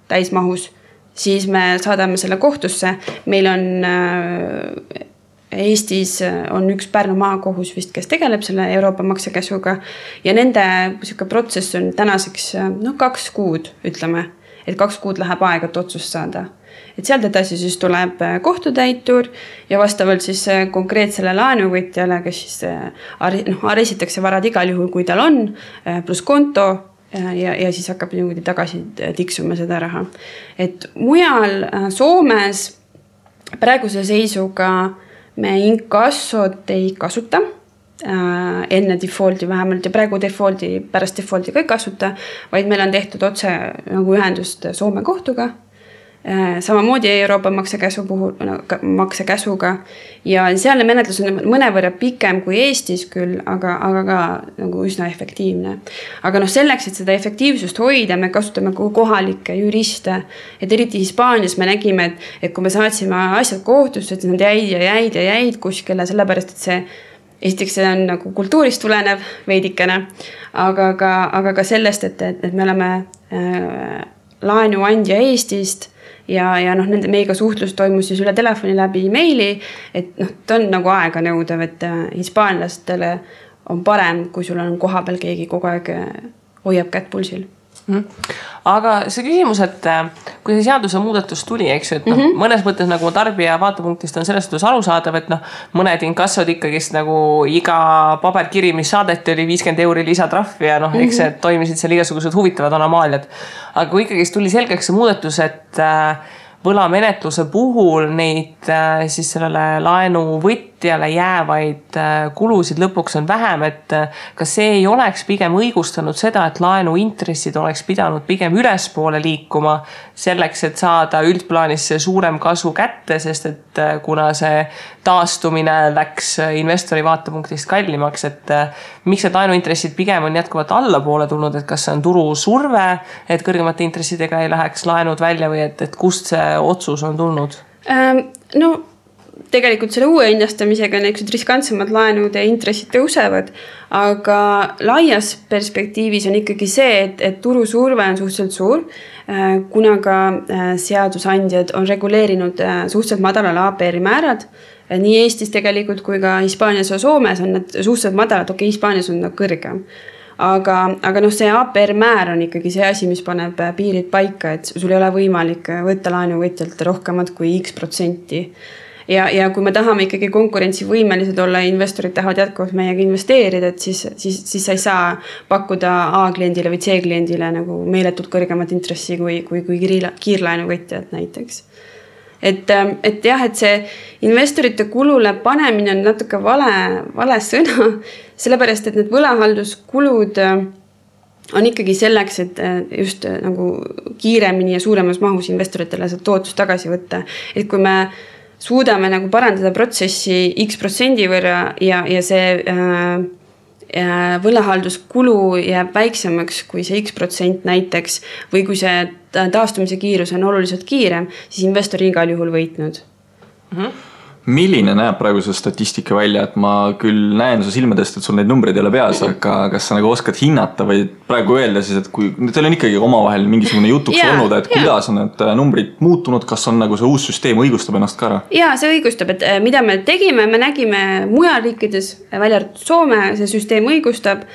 täismahus, siis me saadame selle kohtusse. Meil on Eestis on üks Pärnu maakohus vist, kes tegeleb selle Euroopa maksekäsuga ja nende protsess on tänaseks 2 kuud, ütleme, et 2 kuud läheb aega, et otsust saada. Et sealt edasi siis tuleb kohtutäitur ja vastavalt siis konkreetsele laenuvõtjale, kes siis arestitakse varad igal juhul, kui tal on, pluss konto ja siis hakkab niimoodi tagasi tiksuma seda raha. Et mujal Soomes praeguse seisuga me inkassot ei kasuta enne defaulti vähemalt ja praegu pärast defaulti ka ei kasuta, vaid meil on tehtud otse nagu ühendust Soome kohtuga. Samamoodi Euroopa maksekäsuga ja sealne menetlus on mõnevõrra pikem kui Eestis küll, aga ka nagu üsna efektiivne. Aga selleks, et seda efektiivsust hoida, me kasutame kohalikke juriste, et eriti Hispaanias me nägime, et kui me saatsime asjad kohtusse, et nad jäid kuskile, sellepärast, et see esiteks see on nagu kultuurist tulenev veidikene, aga ka sellest, et me oleme laenuandja Eestist ja meiega suhtlus toimus siis üle telefoni läbi meili, et ta on nagu aega nõudev, et hispaanlastele on parem, kui sul on kohapeal keegi kogu aeg hoiab kätt pulsil. Aga see küsimus, et kui see seaduse muudatus tuli, eks ju, et mõnes mõttes nagu tarbija vaatepunktist on selles suhtes arusaadav, et mõned inkassod ikkagist nagu iga paberkiri, mis saadeti, oli 50 € lisatrahv ja eks see toimisid seal igasugused huvitavad anomaaliad. Aga kui ikkagist tuli selgeks see muudatus, et võlamenetluse puhul neid siis sellele laenuvõtjale jäävaid kulusid lõpuks on vähem, et kas see ei oleks pigem õigustanud seda, et laenuintressid oleks pidanud pigem ülespoole liikuma selleks, et saada üldplaanis see suurem kasu kätte, sest et kuna see taastumine läks investori vaatepunktist kallimaks, et miks need laenuintressid pigem on jätkuvalt allapoole tulnud, et kas see on turu surve, et kõrgemate intressidega ei läheks laenud välja või et kust see otsus on tulnud? Tegelikult selle uue hinnastamisega niisugused riskantsemad laenud ja intressid tõusevad, aga laias perspektiivis on ikkagi see, et turu surve on suhteliselt suur, kuna ka seadusandjad on reguleerinud suhteliselt madalal APR-i määrad. Nii Eestis tegelikult kui ka Hispaanias ja Soomes on need suhteliselt madalad, Hispaanias on kõrgem. Aga see APR määr on ikkagi see asi, mis paneb piirid paika, et sul ei ole võimalik võtta laenuvõtjalt rohkemat kui X%. Ja kui me tahame ikkagi konkurentsivõimelised olla, investorid tahavad jätkuvalt meiega investeerida, et siis sa ei saa pakkuda A-kliendile või C-kliendile nagu meeletult kõrgemat intressi kui kiirlaenuvõtjad näiteks. Et jah, et see investorite kulule panemine on natuke vale sõna, sellepärast, et need võlahalduskulud on ikkagi selleks, et just nagu kiiremini ja suuremas mahus investoritele seda tootlust tagasi võtta. Et kui me suudame nagu parandada protsessi X% võrra ja see võlahalduskulu jääb väiksemaks kui see X% näiteks või kui see taastumise kiirus on oluliselt kiirem, siis investor igal juhul võitnud. Milline näeb praegu see statistika välja, et ma küll näen su silmadest, et sul neid numbreid ei ole peas, aga kas sa nagu oskad hinnata või praegu öelda siis, et kui teil on ikkagi omavahel mingisugune jutuks olnud, et kuidas on need numbrid muutunud, kas on nagu see uus süsteem õigustab ennast ka ära? Jaa, see õigustab, et mida me tegime, me nägime mujal riikides, välja arvatud Soome, see süsteem õigustab,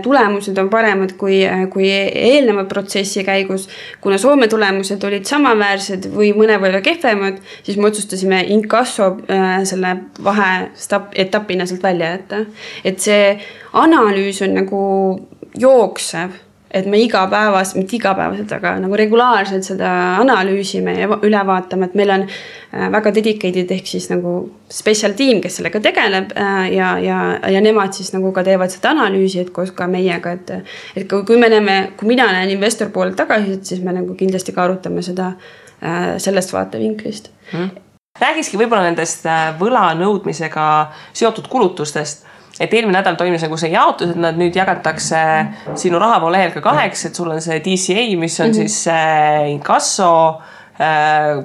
tulemused on paremad kui eelneva protsessi käigus. Kuna Soome tulemused olid samaväärsed või mõnevõrra kehvemad, siis me otsustasime inkasso selle vaheetapina sealt välja jätta. Et see analüüs on nagu jooksev, et me mitte igapäevaselt, aga nagu regulaarselt seda analüüsime ja üle vaatame, et meil on väga dedicated ehk siis nagu special team, kes sellega tegeleb ja nemad siis nagu ka teevad seda analüüsi, et koos ka meiega, et kui mina näen investor poolelt tagasi, siis me nagu kindlasti ka arutame seda sellest vaatevinklist. Räägiski võib-olla nendest võla nõudmisega seotud kulutustest, et eelmine nädal toimus nagu see jaotus, et nad nüüd jagatakse sinu rahavoo lehel ka 2, et sul on see DCA, mis on siis inkasso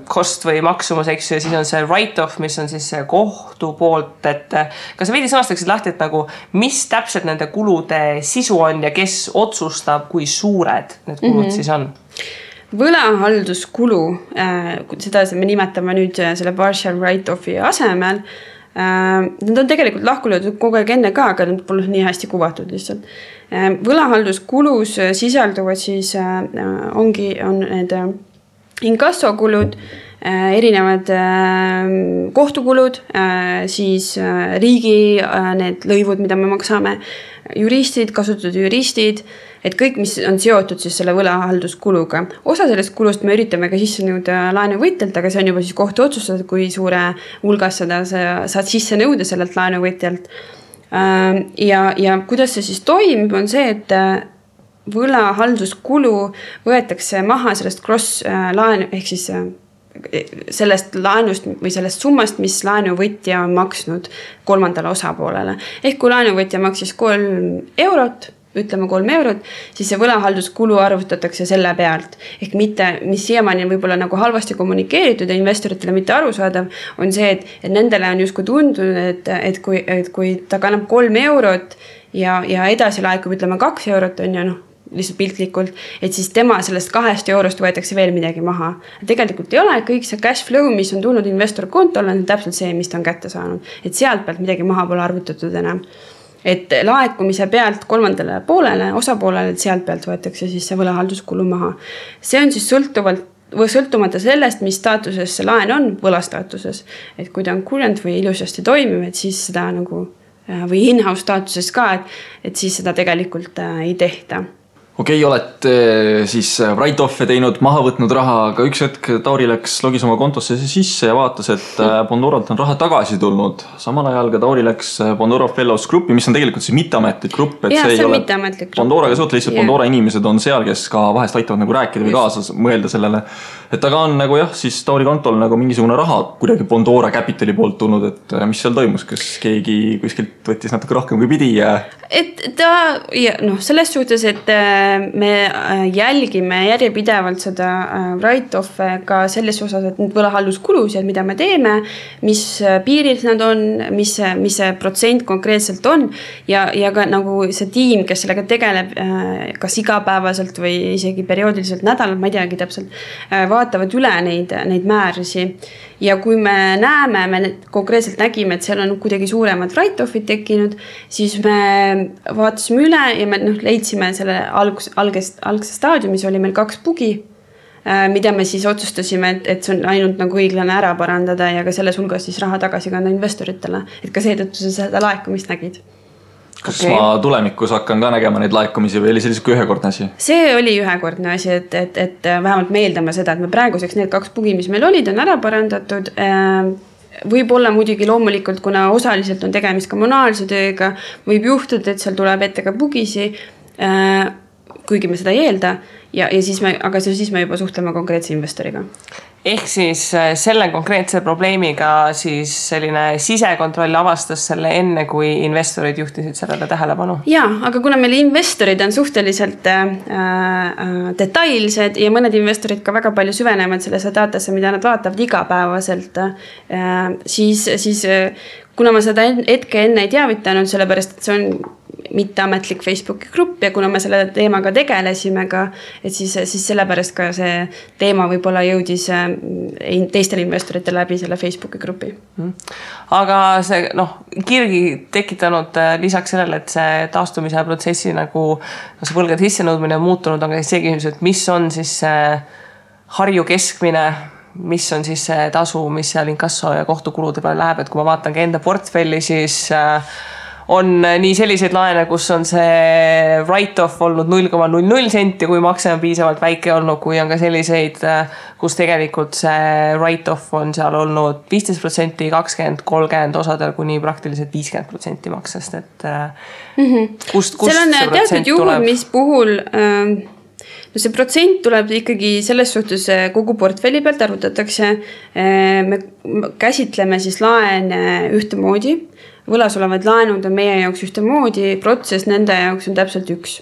cost või maksumus, eks ju, ja siis on see write-off, mis on siis see kohtu poolt, et kas sa veidi sõnastaksid lahti, et nagu mis täpselt nende kulude sisu on ja kes otsustab, kui suured need kulud siis on? Võlahalduskulu, seda me nimetame nüüd selle partial write-offi asemel. Nad on tegelikult lahkulöödud kogu aeg enne ka, aga nad pole nii hästi kuvatud lihtsalt. Võlahalduskulus sisalduvad siis on need inkassokulud, erinevad kohtukulud, siis riigi need lõivud, mida me maksame, juristid, kasutatud juristid, et kõik, mis on seotud siis selle võlahalduskuluga. Osa sellest kulust me üritame ka sisse nõuda laenuvõtjalt, aga see on juba siis kohtu otsustada, kui suure hulgas seda saad sisse nõuda sellelt laenuvõtjalt. Ja kuidas see siis toimib, on see, et võlahalduskulu võetakse maha sellest cross-laenu, ehk siis sellest laenust või sellest summast, mis laenuvõtja on maksnud kolmandale osapoolele. Ehk kui laenuvõtja maksis 3 eurot, ütleme 3 eurot, siis see võlahalduskulu arvutatakse selle pealt. Ehk mitte, mis siiamaani on võib-olla nagu halvasti kommunikeeritud ja investoritele mitte arusaadav, on see, et nendele on justkui tundunud, et kui ta kannab 3 eurot ja edasi laekub, ütleme 2 eurot on ja lihtsalt piltlikult, et siis tema sellest 2 eurost võetakse veel midagi maha. Tegelikult ei ole, kõik see cash flow, mis on tulnud investor kontole, on täpselt see, mis ta on kätte saanud. Et sealt pealt midagi maha pole arvutatud enam. Et laekumise pealt kolmandale poolele, osapoolele, et sealt pealt võetakse siis see võlahalduskulu maha. See on siis sõltumata sellest, mis staatuses see laen on, võlastaatuses. Et kui ta on current või ilusasti toimiv, et siis seda nagu, või in-house staatuses ka, et siis seda tegelikult ei tehta. Okei, olete siis write-off'e teinud, maha võtnud raha, aga üks hetk Tauri läks logis oma kontosse sisse ja vaatas, et Bondoralt on raha tagasi tulnud. Samal ajal ka Tauri läks Bondora Fellows gruppi, mis on tegelikult siis mitteametlik grupp. Ja, see on mitteametlik grupp. Bondoraga suht lihtsalt Bondora inimesed on seal, kes ka vahest aitavad nagu rääkida või kaasas mõelda sellele. Et aga on nagu jah, siis Tauri kontol nagu mingisugune raha kuidagi Bondora Capitali poolt tulnud, et mis seal toimus, kas keegi kuskilt võttis natuke rohkem kui pidi ja... Et ta, selles suhtes, et me jälgime järjepidevalt seda write-off'e ka selles osas, et need võlahalduskulusid, mida me teeme, mis piiril nad on, mis see protsent konkreetselt on ja ka nagu see tiim, kes sellega tegeleb kas igapäevaselt või isegi perioodiliselt nädalal, ma ei teagi täpselt, vaatavad üle neid määrisi. Ja kui me näeme, me konkreetselt nägime, et seal on kuidagi suuremad write-off'id tekkinud, siis me vaatasime üle ja me leidsime selle algse staadiumis oli meil 2 bugi, mida me siis otsustasime, et see on ainult nagu õiglane ära parandada ja ka selles hulgas siis raha tagasi kanda investoritele. Et ka seetõttu seda laekumist nägid. Kas ma tulemikus hakkan ka nägema neid laekumisi või oli sellised ühekordne asi? See oli ühekordne asi, et vähemalt me eeldame seda, et me praeguseks need 2 bugi, mis meil olid, on ära parandatud. Võib olla muidugi loomulikult, kuna osaliselt on tegemist kommunaalse tööga, võib juhtuda, et seal tuleb ette ka bugisi, kuigi me seda ei eelda, aga siis me juba suhtleme konkreetse investoriga. Ehk siis selle konkreetse probleemiga siis selline sisekontroll avastas selle enne, kui investorid juhtisid sellele tähelepanu? Jaa, aga kuna meil investorid on suhteliselt detailsed ja mõned investorid ka väga palju süvenevad sellesse datasse, mida nad vaatavad igapäevaselt, siis kuna ma seda hetke enne ei teavitanud, sellepärast, et see on mitteametlik Facebooki grupp ja kuna me selle teemaga tegelesime ka, et siis sellepärast ka see teema võib-olla jõudis teistele investoritele läbi selle Facebooki grupi. Aga see kirgi tekitanud lisaks sellele, et see taastumise protsessi nagu see võlgade sissenõudmine on muutunud, aga see küsimus, et mis on siis Harju keskmine, mis on siis see tasu, mis seal inkasso ja kohtukulude peale läheb, et kui ma vaatan ka enda portfelli, siis on nii selliseid laene, kus on see write-off olnud 0,00 senti, kui makse on piisavalt väike olnud, kui on ka selliseid, kus tegelikult see write-off on seal olnud 15%, 20%, 30%, osadel kuni praktiliselt 50% maksest, et kust seal on teatud juhul, mis puhul see protsent tuleb ikkagi selles suhtes kogu portfelli pealt arvutatakse. Me käsitleme siis laene ühtemoodi. Võlas olevad laenud on meie jaoks ühtemoodi, protsess nende jaoks on täpselt üks.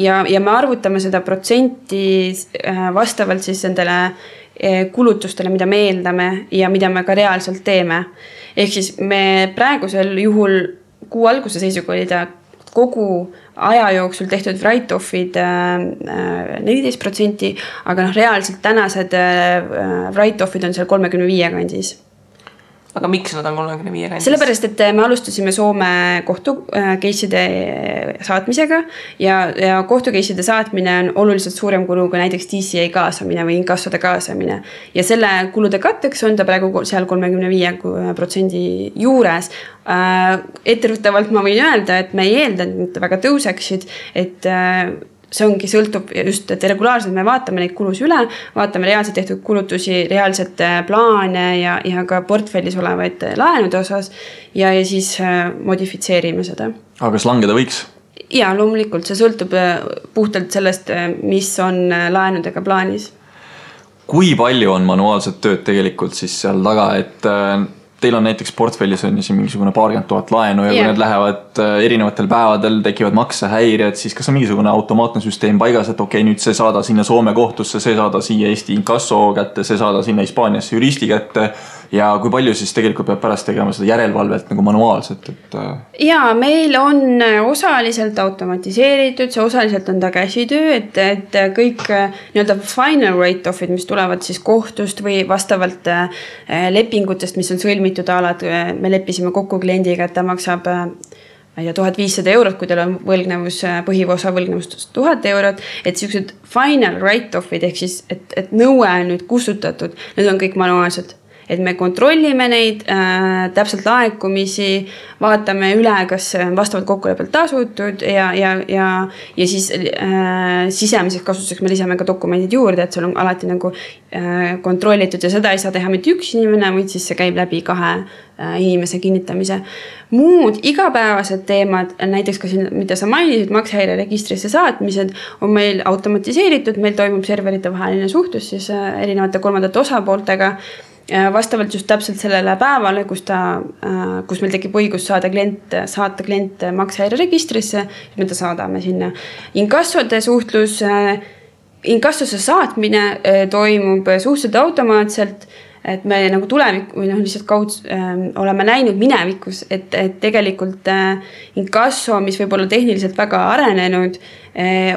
Ja me arvutame seda protsenti vastavalt siis nendele kulutustele, mida me eeldame ja mida me ka reaalselt teeme. Ehk siis me praegusel juhul kuu alguse seisuga oli ta kogu aja jooksul tehtud write-offid 14%, aga reaalselt tänased write-offid on seal 35 kandis. Aga miks nad on 35 kandis? Sellepärast, et me alustasime Soome kohtukeisside saatmisega ja kohtukeisside saatmine on oluliselt suurem kulu kui näiteks DCA kaasamine või inkassode kaasamine. Ja selle kulude katteks on ta praegu seal 35% juures. Etteruttavalt ma võin öelda, et me ei eelda, et väga tõuseksid, et see ongi sõltub just, et regulaarselt me vaatame neid kulusi üle, vaatame reaalselt tehtud kulutusi, reaalselt plaane ja ka portfellis olevaid laenude osas ja siis modifitseerime seda. Aga kas langeda võiks? Ja, loomulikult, see sõltub puhtalt sellest, mis on laenudega plaanis. Kui palju on manuaalset tööd tegelikult siis seal taga, et teil on näiteks portfellis on siin mingisugune 40 000 laenu ja kui need lähevad erinevatel päevadel, tekivad maksehäired, siis kas on mingisugune automaatne süsteem paigas, et okei, nüüd see saada sinna Soome kohtusse, see saada siia Eesti inkasso kätte, see saada sinna Hispaaniasse juristi kätte ja kui palju siis tegelikult peab pärast tegema seda järelevalvet nagu manuaalselt? Ja, meil on osaliselt automatiseeritud, see osaliselt on ta käsitöö, et kõik nii-öelda final write-offid, mis tulevad siis kohtust või vastavalt lepingutest, mis on sõlmitud alad, me leppisime kokku kliendiga, et ta maksab 1500 €, kui teil on võlgnevus, põhiosa võlgnevust 1000 €, et sellised final write-offid ehk siis, et nõue on nüüd kustutatud, need on kõik manuaalsed. Et me kontrollime neid täpselt laekumisi, vaatame üle, kas vastavalt kokkuleppelt tasutud ja siis sisemiseks kasutuseks me lisame ka dokumendid juurde, et seal on alati nagu kontrollitud ja seda ei saa teha mitte üks inimene, vaid siis see käib läbi 2 inimese kinnitamise. Muud igapäevased teemad, näiteks ka siin, mida sa mainisid, maksehäire registrisse saatmised, on meil automatiseeritud, meil toimub serverite vaheline suhtlus siis erinevate kolmandate osapooltega, vastavalt just täpselt sellele päevale, kus meil tekib õigus saata klient maksehäire registrisse, me ta saadame sinna. Inkassode suhtlus, inkassosse saatmine toimub suhteliselt automaatselt, et me nagu tulevik või lihtsalt oleme näinud minevikus, et tegelikult inkasso, mis võib olla tehniliselt väga arenenud,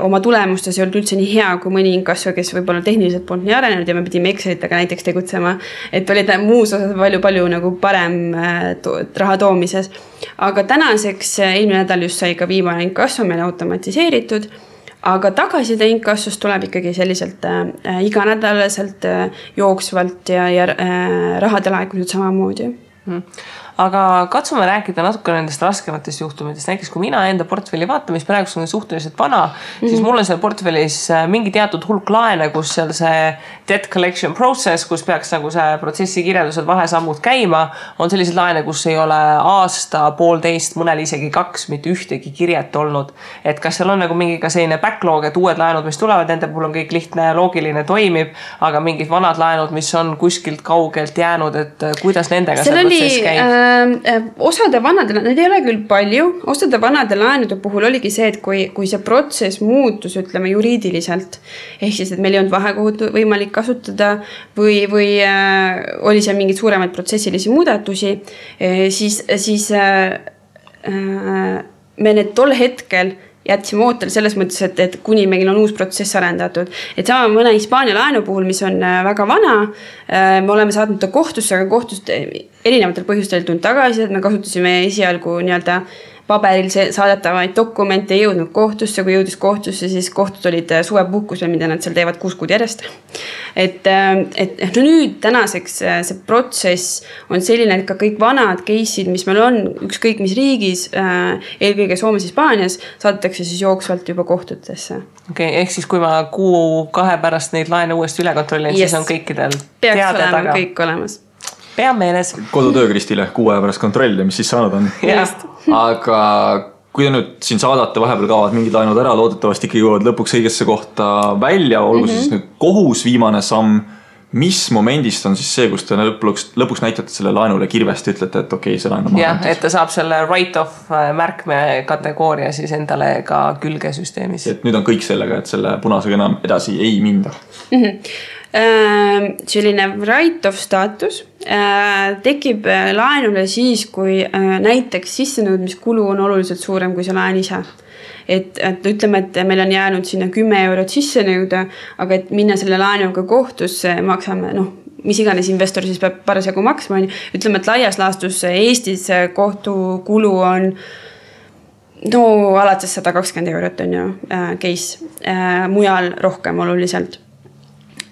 oma tulemustes ei olnud üldse nii hea kui mõni inkasso, kes võib-olla tehniliselt polnud nii arenenud ja me pidime Excelitega näiteks tegutsema, et olid muus osas palju nagu parem raha toomises. Aga tänaseks eelmine nädal just sai ka viimane inkasso meil automatiseeritud, aga tagaside inkassost tuleb ikkagi selliselt iganädalaselt jooksvalt ja rahade laekumised samamoodi. Aga katsume rääkida natuke nendest raskematest juhtumitest. Näiteks kui mina enda portfelli vaatan, mis praegu on suhteliselt vana, siis mul on seal portfellis mingi teatud hulk laene, kus seal see debt collection process, kus peaks nagu see protsessi kirjeldused vahesammud käima, on sellised laene, kus ei ole aasta, 1,5, mõnel isegi 2, mitte ühtegi kirjet olnud. Et kas seal on nagu mingi ka selline backlog, et uued laenud, mis tulevad, nende puhul on kõik lihtne ja loogiline toimib, aga mingid vanad laenud, mis on kuskilt kaugelt jäänud, et kuidas nendega see protsess käib? Osade vanade, need ei ole küll palju, osade vanade laenude puhul oligi see, et kui see protsess muutus, ütleme juriidiliselt, ehk siis, et meil ei olnud vahekohut võimalik kasutada või oli seal mingid suuremaid protsessilisi muudatusi, siis me need tol hetkel jätsime ootele selles mõttes, et kuni meil on uus protsess arendatud. Et sama mõne Hispaania laenu puhul, mis on väga vana, me oleme saatnud ta kohtusse, aga kohtust erinevatel põhjustel tulnud tagasi, et me kasutasime esialgu nii-öelda paberil saadetavaid dokumente, ei jõudnud kohtusse, kui jõudis kohtusse, siis kohtud olid suvepuhkusel, mida nad seal teevad 6 kuud järjest. Et nüüd tänaseks see protsess on selline, et ka kõik vanad case'id, mis meil on, ükskõik mis riigis, eelkõige Soomes, Hispaanias, saadetakse siis jooksvalt juba kohtutesse. Okei, ehk siis kui ma 1-2 pärast neid laene uuesti üle kontrollin, siis on kõikidel peaks olema kõik olemas. Pea meeles. Kodutöö Kristile 6 aja pärast kontrolli, mis siis saanud on. Aga kui te nüüd siin saadate, vahepeal kaovad mingid laenud ära, loodetavasti ikkagi jõuavad lõpuks õigesse kohta välja, olgu siis nüüd kohus viimane samm, mis momendist on siis see, kus te lõpuks näitate selle laenule kirvest, ütlete, et okei, see laen on maha. Et ta saab selle write-off märkme kategooria siis endale ka külge süsteemis. Et nüüd on kõik sellega, et selle punasega enam edasi ei minda. Selline write-off staatus tekib laenule siis, kui näiteks sissenõudmiskulu on oluliselt suurem kui see laen ise. Et ütleme, et meil on jäänud sinna 10 eurot sisse nõuda, aga et minna selle laenuga kohtusse maksame, mis iganes investor siis peab parasjagu maksma. Ütleme, et laias laastus Eestis kohtukulu on alates 120 eurot on ju case, mujal rohkem oluliselt.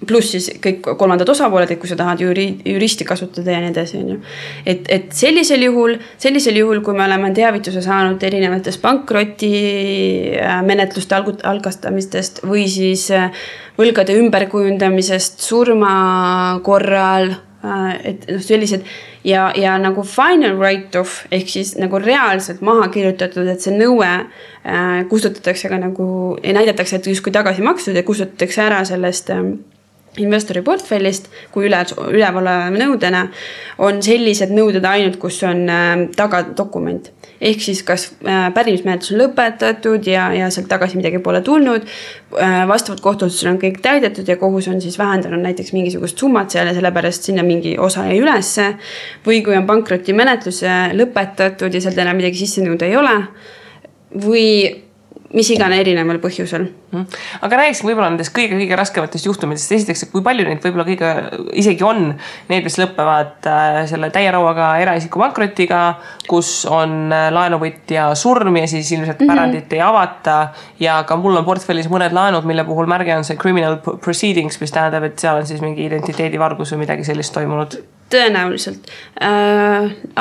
Pluss siis kõik kolmandad osapooled, et kui sa tahad juristi kasutada ja nii edasi. Et sellisel juhul, kui me oleme teavituse saanud erinevatest pankroti menetluste algastamistest või siis võlgade ümberkujundamisest surma korral, et sellised ja nagu final write-off ehk siis nagu reaalselt maha kirjutatud, et see nõue kustutatakse ka nagu ja näidatakse, et justkui tagasi makstud ja kustutatakse ära sellest investori portfellist kui ülevaleva nõudena on sellised nõuded ainult, kus on tagadokument. Ehk siis kas pärimismenetlus on lõpetatud ja sealt tagasi midagi pole tulnud, vastavalt kohtuotsusele on kõik täidetud ja kohus on siis vähendanud näiteks mingisugust summat seal ja sellepärast sinna mingi osa jäi ülesse või kui on pankroti menetlus lõpetatud ja sealt enam midagi sisse nõuda ei ole või mis igane erineval põhjusel. Aga räägiks võib-olla nendest kõige raskematest juhtumitest. Esiteks, kui palju neid võib-olla kõige isegi on need, mis lõppevad selle täierauaga eraisiku pankrotiga, kus on laenuvõtja surm ja siis ilmselt pärandit ei avata ja ka mul on portfellis mõned laenud, mille puhul märge on see criminal proceedings, mis tähendab, et seal on siis mingi identiteedivargus või midagi sellist toimunud. Tõenäoliselt.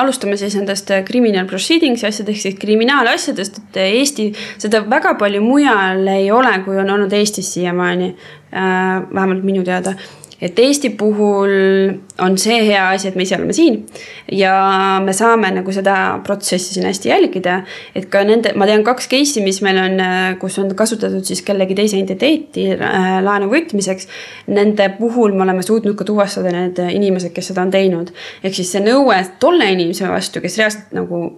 Alustame siis nendest criminal proceedings asjadest, siis kriminaalasjadest, et Eesti seda väga palju mujal ei ole, kui on olnud Eestis siiamaani, vähemalt minu teada. Et Eesti puhul on see hea asi, et me ise oleme siin ja me saame nagu seda protsessi siin hästi jälgida, et ka ma tean 2 case'i, mis meil on, kus on kasutatud siis kellegi teise identiteeti laenu võtmiseks, nende puhul me oleme suutnud ka tuvastada need inimesed, kes seda on teinud. Ehk siis see nõue tolle inimese vastu, kes reaalselt nagu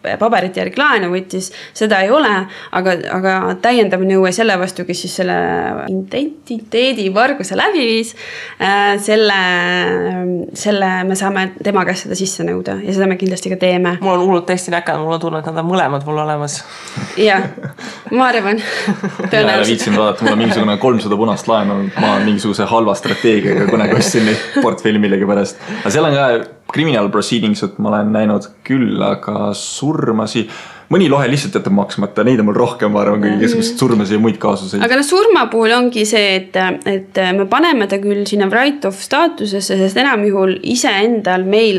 paberite järgi laenu võttis, seda ei ole, aga täiendav nõue selle vastu, kes siis selle identiteedi varguse läbi viis, selle me saame tema käest seda sisse nõuda ja seda me kindlasti ka teeme. Mul on hullult täiesti näkanud, mul on tunne, et nad on mõlemad mul olemas. Jah, ma arvan. Mina viitsin vaadata, mul on mingisugune 300 punast laenu, ma olen mingisuguse halva strateegiaga kõnega ostsin neid portfelli millegi pärast. Aga seal on ka criminal proceedings, et ma olen näinud küll, aga surmasi, mõni lohe lihtsalt jätab maksmata, neid on mul rohkem, ma arvan, kui keskused surmasi ja muid kaasuseid. Aga surma puhul ongi see, et me paneme ta küll sinna write-off staatusesse, sest enam juhul ise endal meil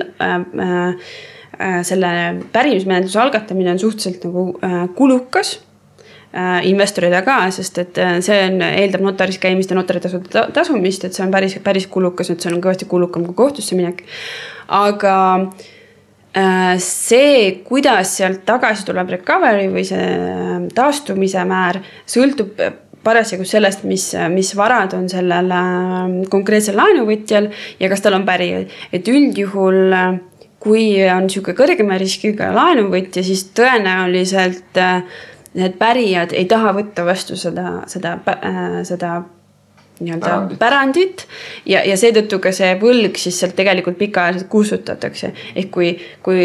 selle pärimismenetluse algatamine on suhteliselt nagu kulukas investorida ka, sest et see eeldab notaris käimist ja notaritasude tasumist, et see on päris kulukas, et see on kõvasti kulukam kui kohtusse minek. Aga see, kuidas sealt tagasi tuleb recovery või see taastumise määr, sõltub parasjagu sellest, mis varad on sellel konkreetsel laenuvõtjal ja kas tal on pärijad. Et üldjuhul, kui on niisugune kõrgema riskiga laenuvõtja, siis tõenäoliselt need pärijad ei taha võtta vastu seda pärandit ja seetõttu ka see võlg siis sealt tegelikult pikaajaliselt kustutatakse. Ehk kui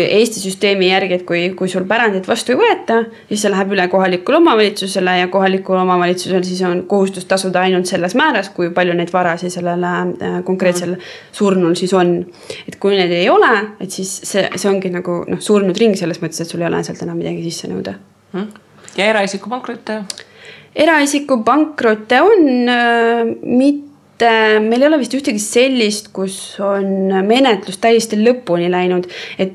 Eesti süsteemi järgi, et kui sul pärandit vastu ei võeta, siis see läheb üle kohalikule omavalitsusele ja kohalikul omavalitsusel siis on kohustus tasuda ainult selles määras, kui palju neid varasi sellele konkreetsel surnul siis on. Et kui need ei ole, et siis see ongi nagu surnud ring selles mõttes, et sul ei ole sealt enam midagi sisse nõuda. Ja eraisiku pankrotte? Eraisiku pankrotte on mitte, meil ei ole vist ühtegi sellist, kus on menetlus täiesti lõpuni läinud, et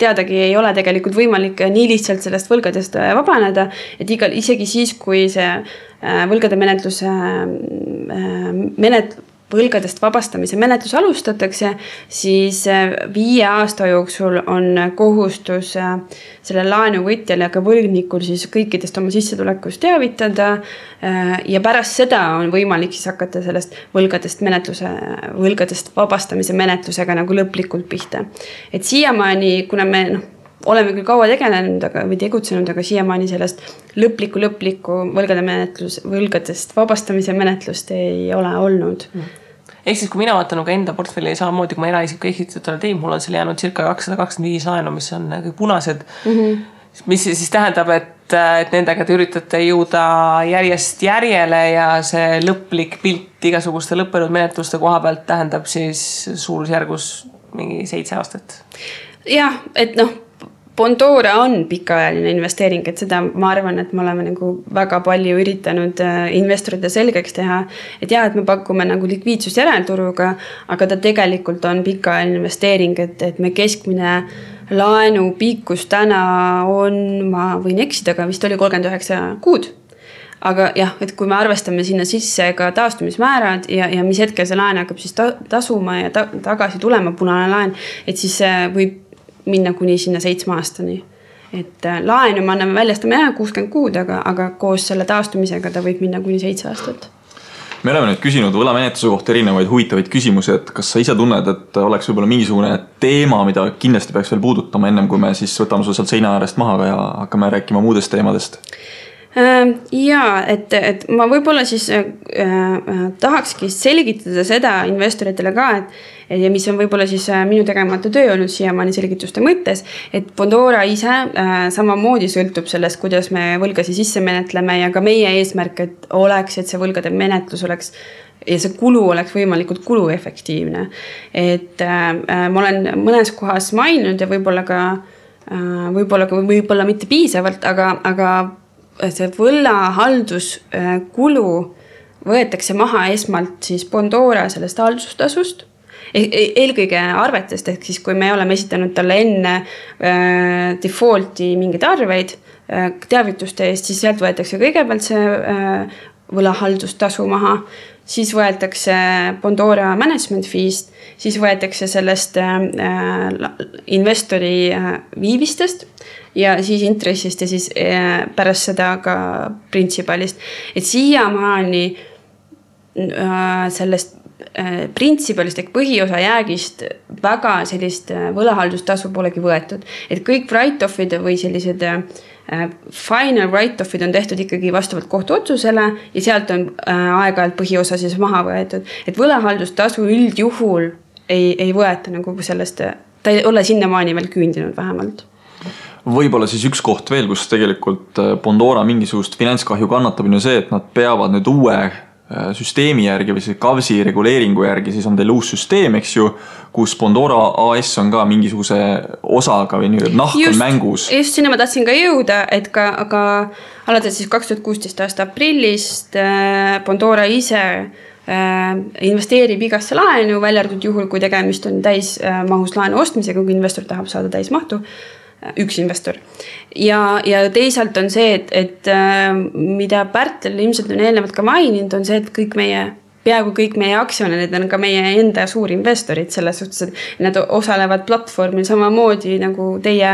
teadagi ei ole tegelikult võimalik nii lihtsalt sellest võlgadest vabaneda, et isegi siis, kui see võlgade võlgadest vabastamise menetlus alustatakse, siis 5 aasta jooksul on kohustus selle laenuvõtjal ja ka võlgnikul siis kõikidest oma sissetulekust teavitada ja pärast seda on võimalik siis hakata sellest võlgadest vabastamise menetlusega nagu lõplikult pihta. Et siiamaani, kuna me oleme küll kaua tegelenud või tegutsenud, aga siiamaani sellest lõplikku võlgadest vabastamise menetlust ei ole olnud. ehk siis, kui mina vaatan nagu enda portfelli samamoodi, kui ma eraisiku ehitutele tein, mul on seal jäänud circa 225 laenu, mis on kõik punased, mis siis tähendab, et nendega te üritate jõuda järjest järjele ja see lõplik pilt igasuguste lõppenud menetluste koha pealt tähendab siis suurusjärgus mingi 7 aastat. Jah, et Bondora on pikaajaline investeering, et seda ma arvan, et me oleme nagu väga palju üritanud investorite selgeks teha, et jah, et me pakume nagu likviidsust järelturuga, aga ta tegelikult on pikaajaline investeering, et me keskmine laenu pikkus täna on, ma võin eksida, aga vist oli 39 kuud. Aga jah, et kui me arvestame sinna sisse ka taastumismäärad ja mis hetkel see laen hakkab siis tasuma ja tagasi tulema punane laen, et siis võib minna kuni sinna 7 aastani. Et laenu me anname väljastame 60 kuud, aga koos selle taastumisega ta võib minna kuni 7 aastat. Me oleme nüüd küsinud võlamenetluse kohta erinevaid huvitavaid küsimusi, et kas sa ise tunned, et oleks võib-olla mingisugune teema, mida kindlasti peaks veel puudutama ennem, kui me siis võtame su sealt seina äärest maha ja hakkame rääkima muudest teemadest? Jaa, et ma võib-olla siis tahakski selgitada seda investoritele ka, ja mis on võib-olla siis minu tegemata töö olnud siiamaani selgituste mõttes, et Bondora ise samamoodi sõltub sellest, kuidas me võlgasi sisse menetleme ja ka meie eesmärk, et see võlgade menetlus oleks ja see kulu oleks võimalikult kuluefektiivne. Et ma olen mõnes kohas maininud ja võib-olla mitte piisavalt, aga see võlahalduskulu võetakse maha esmalt siis Bondora sellest haldustasust, eelkõige arvetest, ehk siis kui me oleme esitanud talle enne defaulti mingeid arveid teavituste eest, siis sealt võetakse kõigepealt see võlahaldustasu maha, siis võetakse Bondora management fee'st, siis võetakse sellest investori viivistest ja siis intressist ja siis pärast seda ka printsipalist. Et siiamaani sellest printsipalist ehk põhiosa jäägist väga sellist võlahaldustasu polegi võetud. Et kõik write-offid või sellised final write-offid on tehtud ikkagi vastavalt kohtuotsusele ja sealt on aeg-ajalt põhiosa siis maha võetud. Et võlahaldustasu üldjuhul ei võeta nagu sellest, ta ei ole sinnamaani veel küündinud vähemalt. Võib-olla siis üks koht veel, kus tegelikult Bondora mingisugust finantskahju kannatab, on ju see, et nad peavad nüüd uue süsteemi järgi või see KAVSi reguleeringu järgi, siis on teil uus süsteem, eks ju, kus Bondora AS on ka mingisuguse osaga või nahk on mängus. Just sinna ma tahtsin ka jõuda, et aga alates siis 2016 aasta aprillist Bondora ise investeerib igasse laenu, välja arvatud juhul, kui tegemist on täismahus laenu ostmisega, kui investor tahab saada täismahtu, üks investor. Ja teisalt on see, et mida Pärtel ilmselt on eelnevalt ka maininud, on see, et peaaegu kõik meie aktsionärid on ka meie enda suurinvestorid selles suhtes, et nad osalevad platvormil samamoodi nagu teie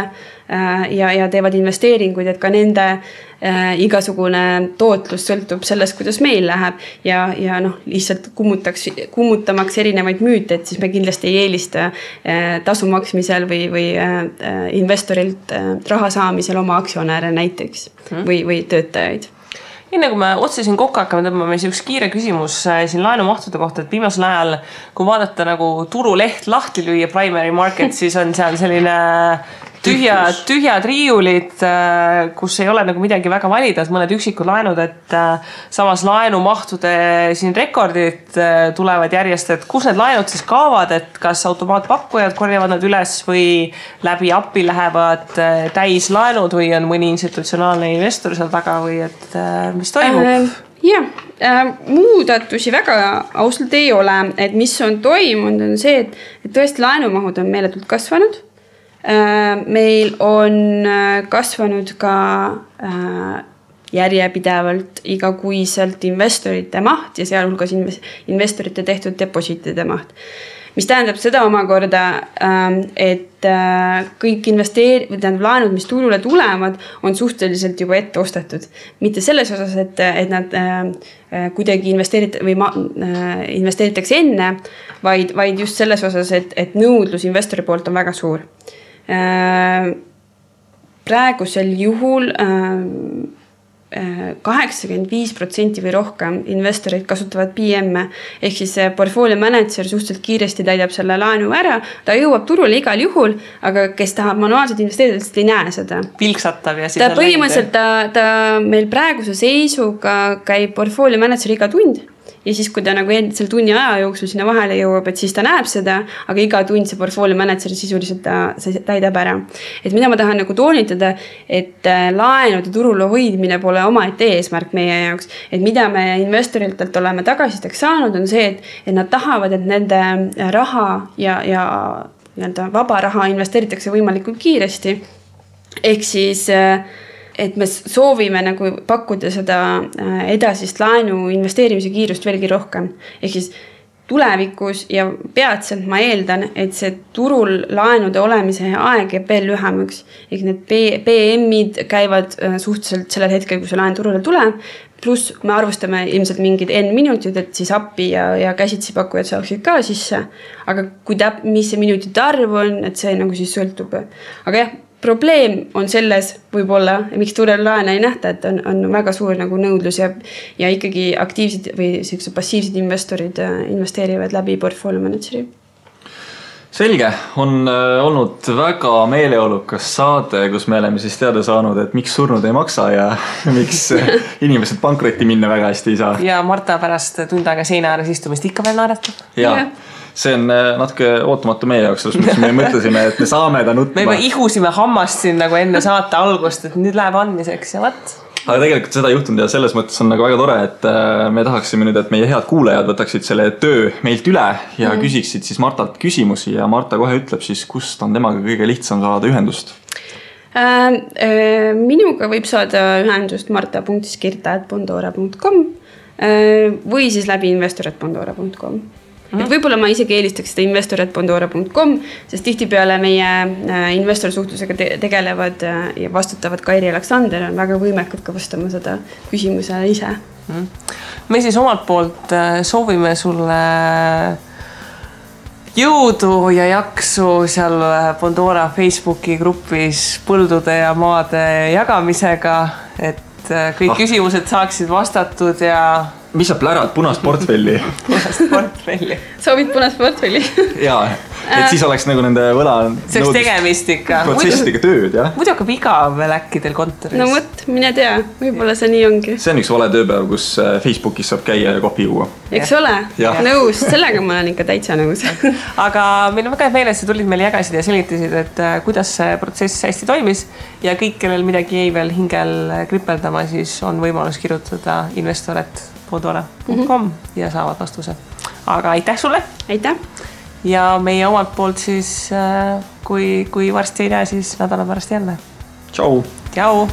ja teevad investeeringuid, et ka nende igasugune tootlus sõltub sellest, kuidas meil läheb ja lihtsalt kummutamaks erinevaid müüte, et siis me kindlasti ei eelista tasu maksmisel või investorilt raha saamisel oma aktsionäre näiteks või töötajaid. Enne kui me otsesin kokku hakkame tõmbame üks kiire küsimus siin laenumahtude kohta, et viimasel ajal, kui vaadata nagu turuleht lahti lüüa primary market, siis on seal selline tühjad riiulid, kus ei ole nagu midagi väga valida, mõned üksikud laenud, et samas laenumahtude siin rekordid tulevad järjest, et kus need laenud siis kaavad, et kas automaatpakkujad korjavad nad üles või läbi API lähevad täislaenud või on mõni institutsionaalne investor seal taga või et mis toimub? Muudatusi väga ausalt ei ole, et mis on toimunud on see, et tõesti laenumahud on meeletult kasvanud. Meil on kasvanud ka järjepidevalt igakuiselt investorite maht ja sealhulgas investorite tehtud depositide maht. Mis tähendab seda omakorda, et kõik laenud, mis turule tulevad, on suhteliselt juba ette ostetud. Mitte selles osas, et nad kuidagi investeeritakse enne, vaid just selles osas, et nõudlus investori poolt on väga suur. Praegusel juhul 85% või rohkem investorid kasutavad PM-e, ehk siis portfolio manager suhteliselt kiiresti täidab selle laenu ära, ta jõuab turule igal juhul, aga kes tahab manuaalselt investeerida, ei näe seda. Pilksatab ja siis ta põhimõtteliselt ta meil praeguse seisuga käib portfolio manager iga tund ja siis, kui ta nagu selle tunni aja jooksul sinna vahele jõuab, et siis ta näeb seda, aga iga tund see portfolio manager sisuliselt ta täidab ära. Et mida ma tahan nagu toonitada, et laenude turul hoidmine pole omaette eesmärk meie jaoks. Et mida me investoritelt oleme tagasiteks saanud, on see, et nad tahavad, et nende raha ja vaba raha investeeritakse võimalikult kiiresti. Ehk siis et me soovime nagu pakkuda seda edasist laenu investeerimise kiirust veelgi rohkem. Ehk siis tulevikus ja peatselt ma eeldan, et see turul laenude olemise aeg jääb veel lühemaks. Ehk need PM-id käivad suhteliselt sellel hetkel, kui see laen turule tuleb. Plus me arvustame ilmselt mingid N minutid, et siis appi ja käsitsi pakkujad saaksid ka sisse. Aga mis see minutite arv on, et see nagu siis sõltub. Aga jah, probleem on selles võib-olla, miks turel laene ei nähta, et on väga suur nagu nõudlus ja ikkagi aktiivsed või passiivsed investorid investeerivad läbi portfolio manageri. Selge, on olnud väga meeleolukas saade, kus me oleme siis teada saanud, et miks surnud ei maksa ja miks inimesed pankrotti minna väga hästi ei saa. Ja Marta pärast tund aega seina ääres istumist ikka veel naeratab. Ja. See on natuke ootamatu meie jaoks, mis me mõtlesime, et me saame ta nutma. Me juba ihusime hammast siin nagu enne saate algust, et nüüd läheb andmiseks ja võt. Aga tegelikult seda juhtunud ja selles mõttes on nagu väga tore, et me tahaksime nüüd, et meie head kuulajad võtaksid selle töö meilt üle ja küsiksid siis Martalt küsimusi ja Marta kohe ütleb siis, kust on temaga kõige lihtsam saada ühendust. Minuga võib saada ühendust marta.skirta@bondora.com või siis läbi investor@bondora.com. Et võib-olla ma isegi eelistaks seda investor@bondora.com, sest tihtipeale meie investorsuhtlusega tegelevad ja vastutavad Kairi Aleksander on väga võimekad ka vastama seda küsimuse ise. Me siis omalt poolt soovime sulle jõudu ja jaksu seal Bondora Facebooki grupis põldude ja maade jagamisega, et kõik küsimused saaksid vastatud ja mis sa plärad punast portfelli? Punast portfelli. Soovid punast portfelli? Jaa, et siis oleks nagu nende võla see oleks tegemist ikka. Protsessidega tööd, jah? Muidu hakkab igav äkki teil kontoris. No võt, mine tea, võib-olla see nii ongi. See on üks vale tööpäev, kus Facebookis saab käia ja kohvi juua. Eks ole? Nõus, sellega ma olen ikka täitsa nõus. Aga meil on väga meeles, sa tulid meil jagasid ja selgitasid, et kuidas see protsess hästi toimis ja kõik, kellel midagi jäi veel hingel kripeldama, siis on võimalus kirjutada investor@bondora.com ja saavad vastuse. Aga aitäh sulle! Aitäh! Ja meie omalt poolt siis, kui varsti ei näe, siis nädala pärast jälle. Tšau! Tšau!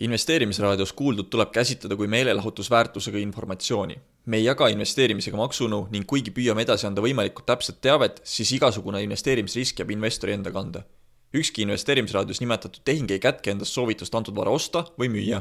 Investeerimisraadios kuuldud tuleb käsitleda kui meelelahutusväärtusega informatsiooni. Me ei jaga investeerimisega maksunõu ning kuigi püüame edasi anda võimalikult täpset teavet, siis igasugune investeerimisrisk jääb investori enda kanda. Ükski investeerimisraadios nimetatud tehing ei kätke endast soovitust antud vara osta või müüa.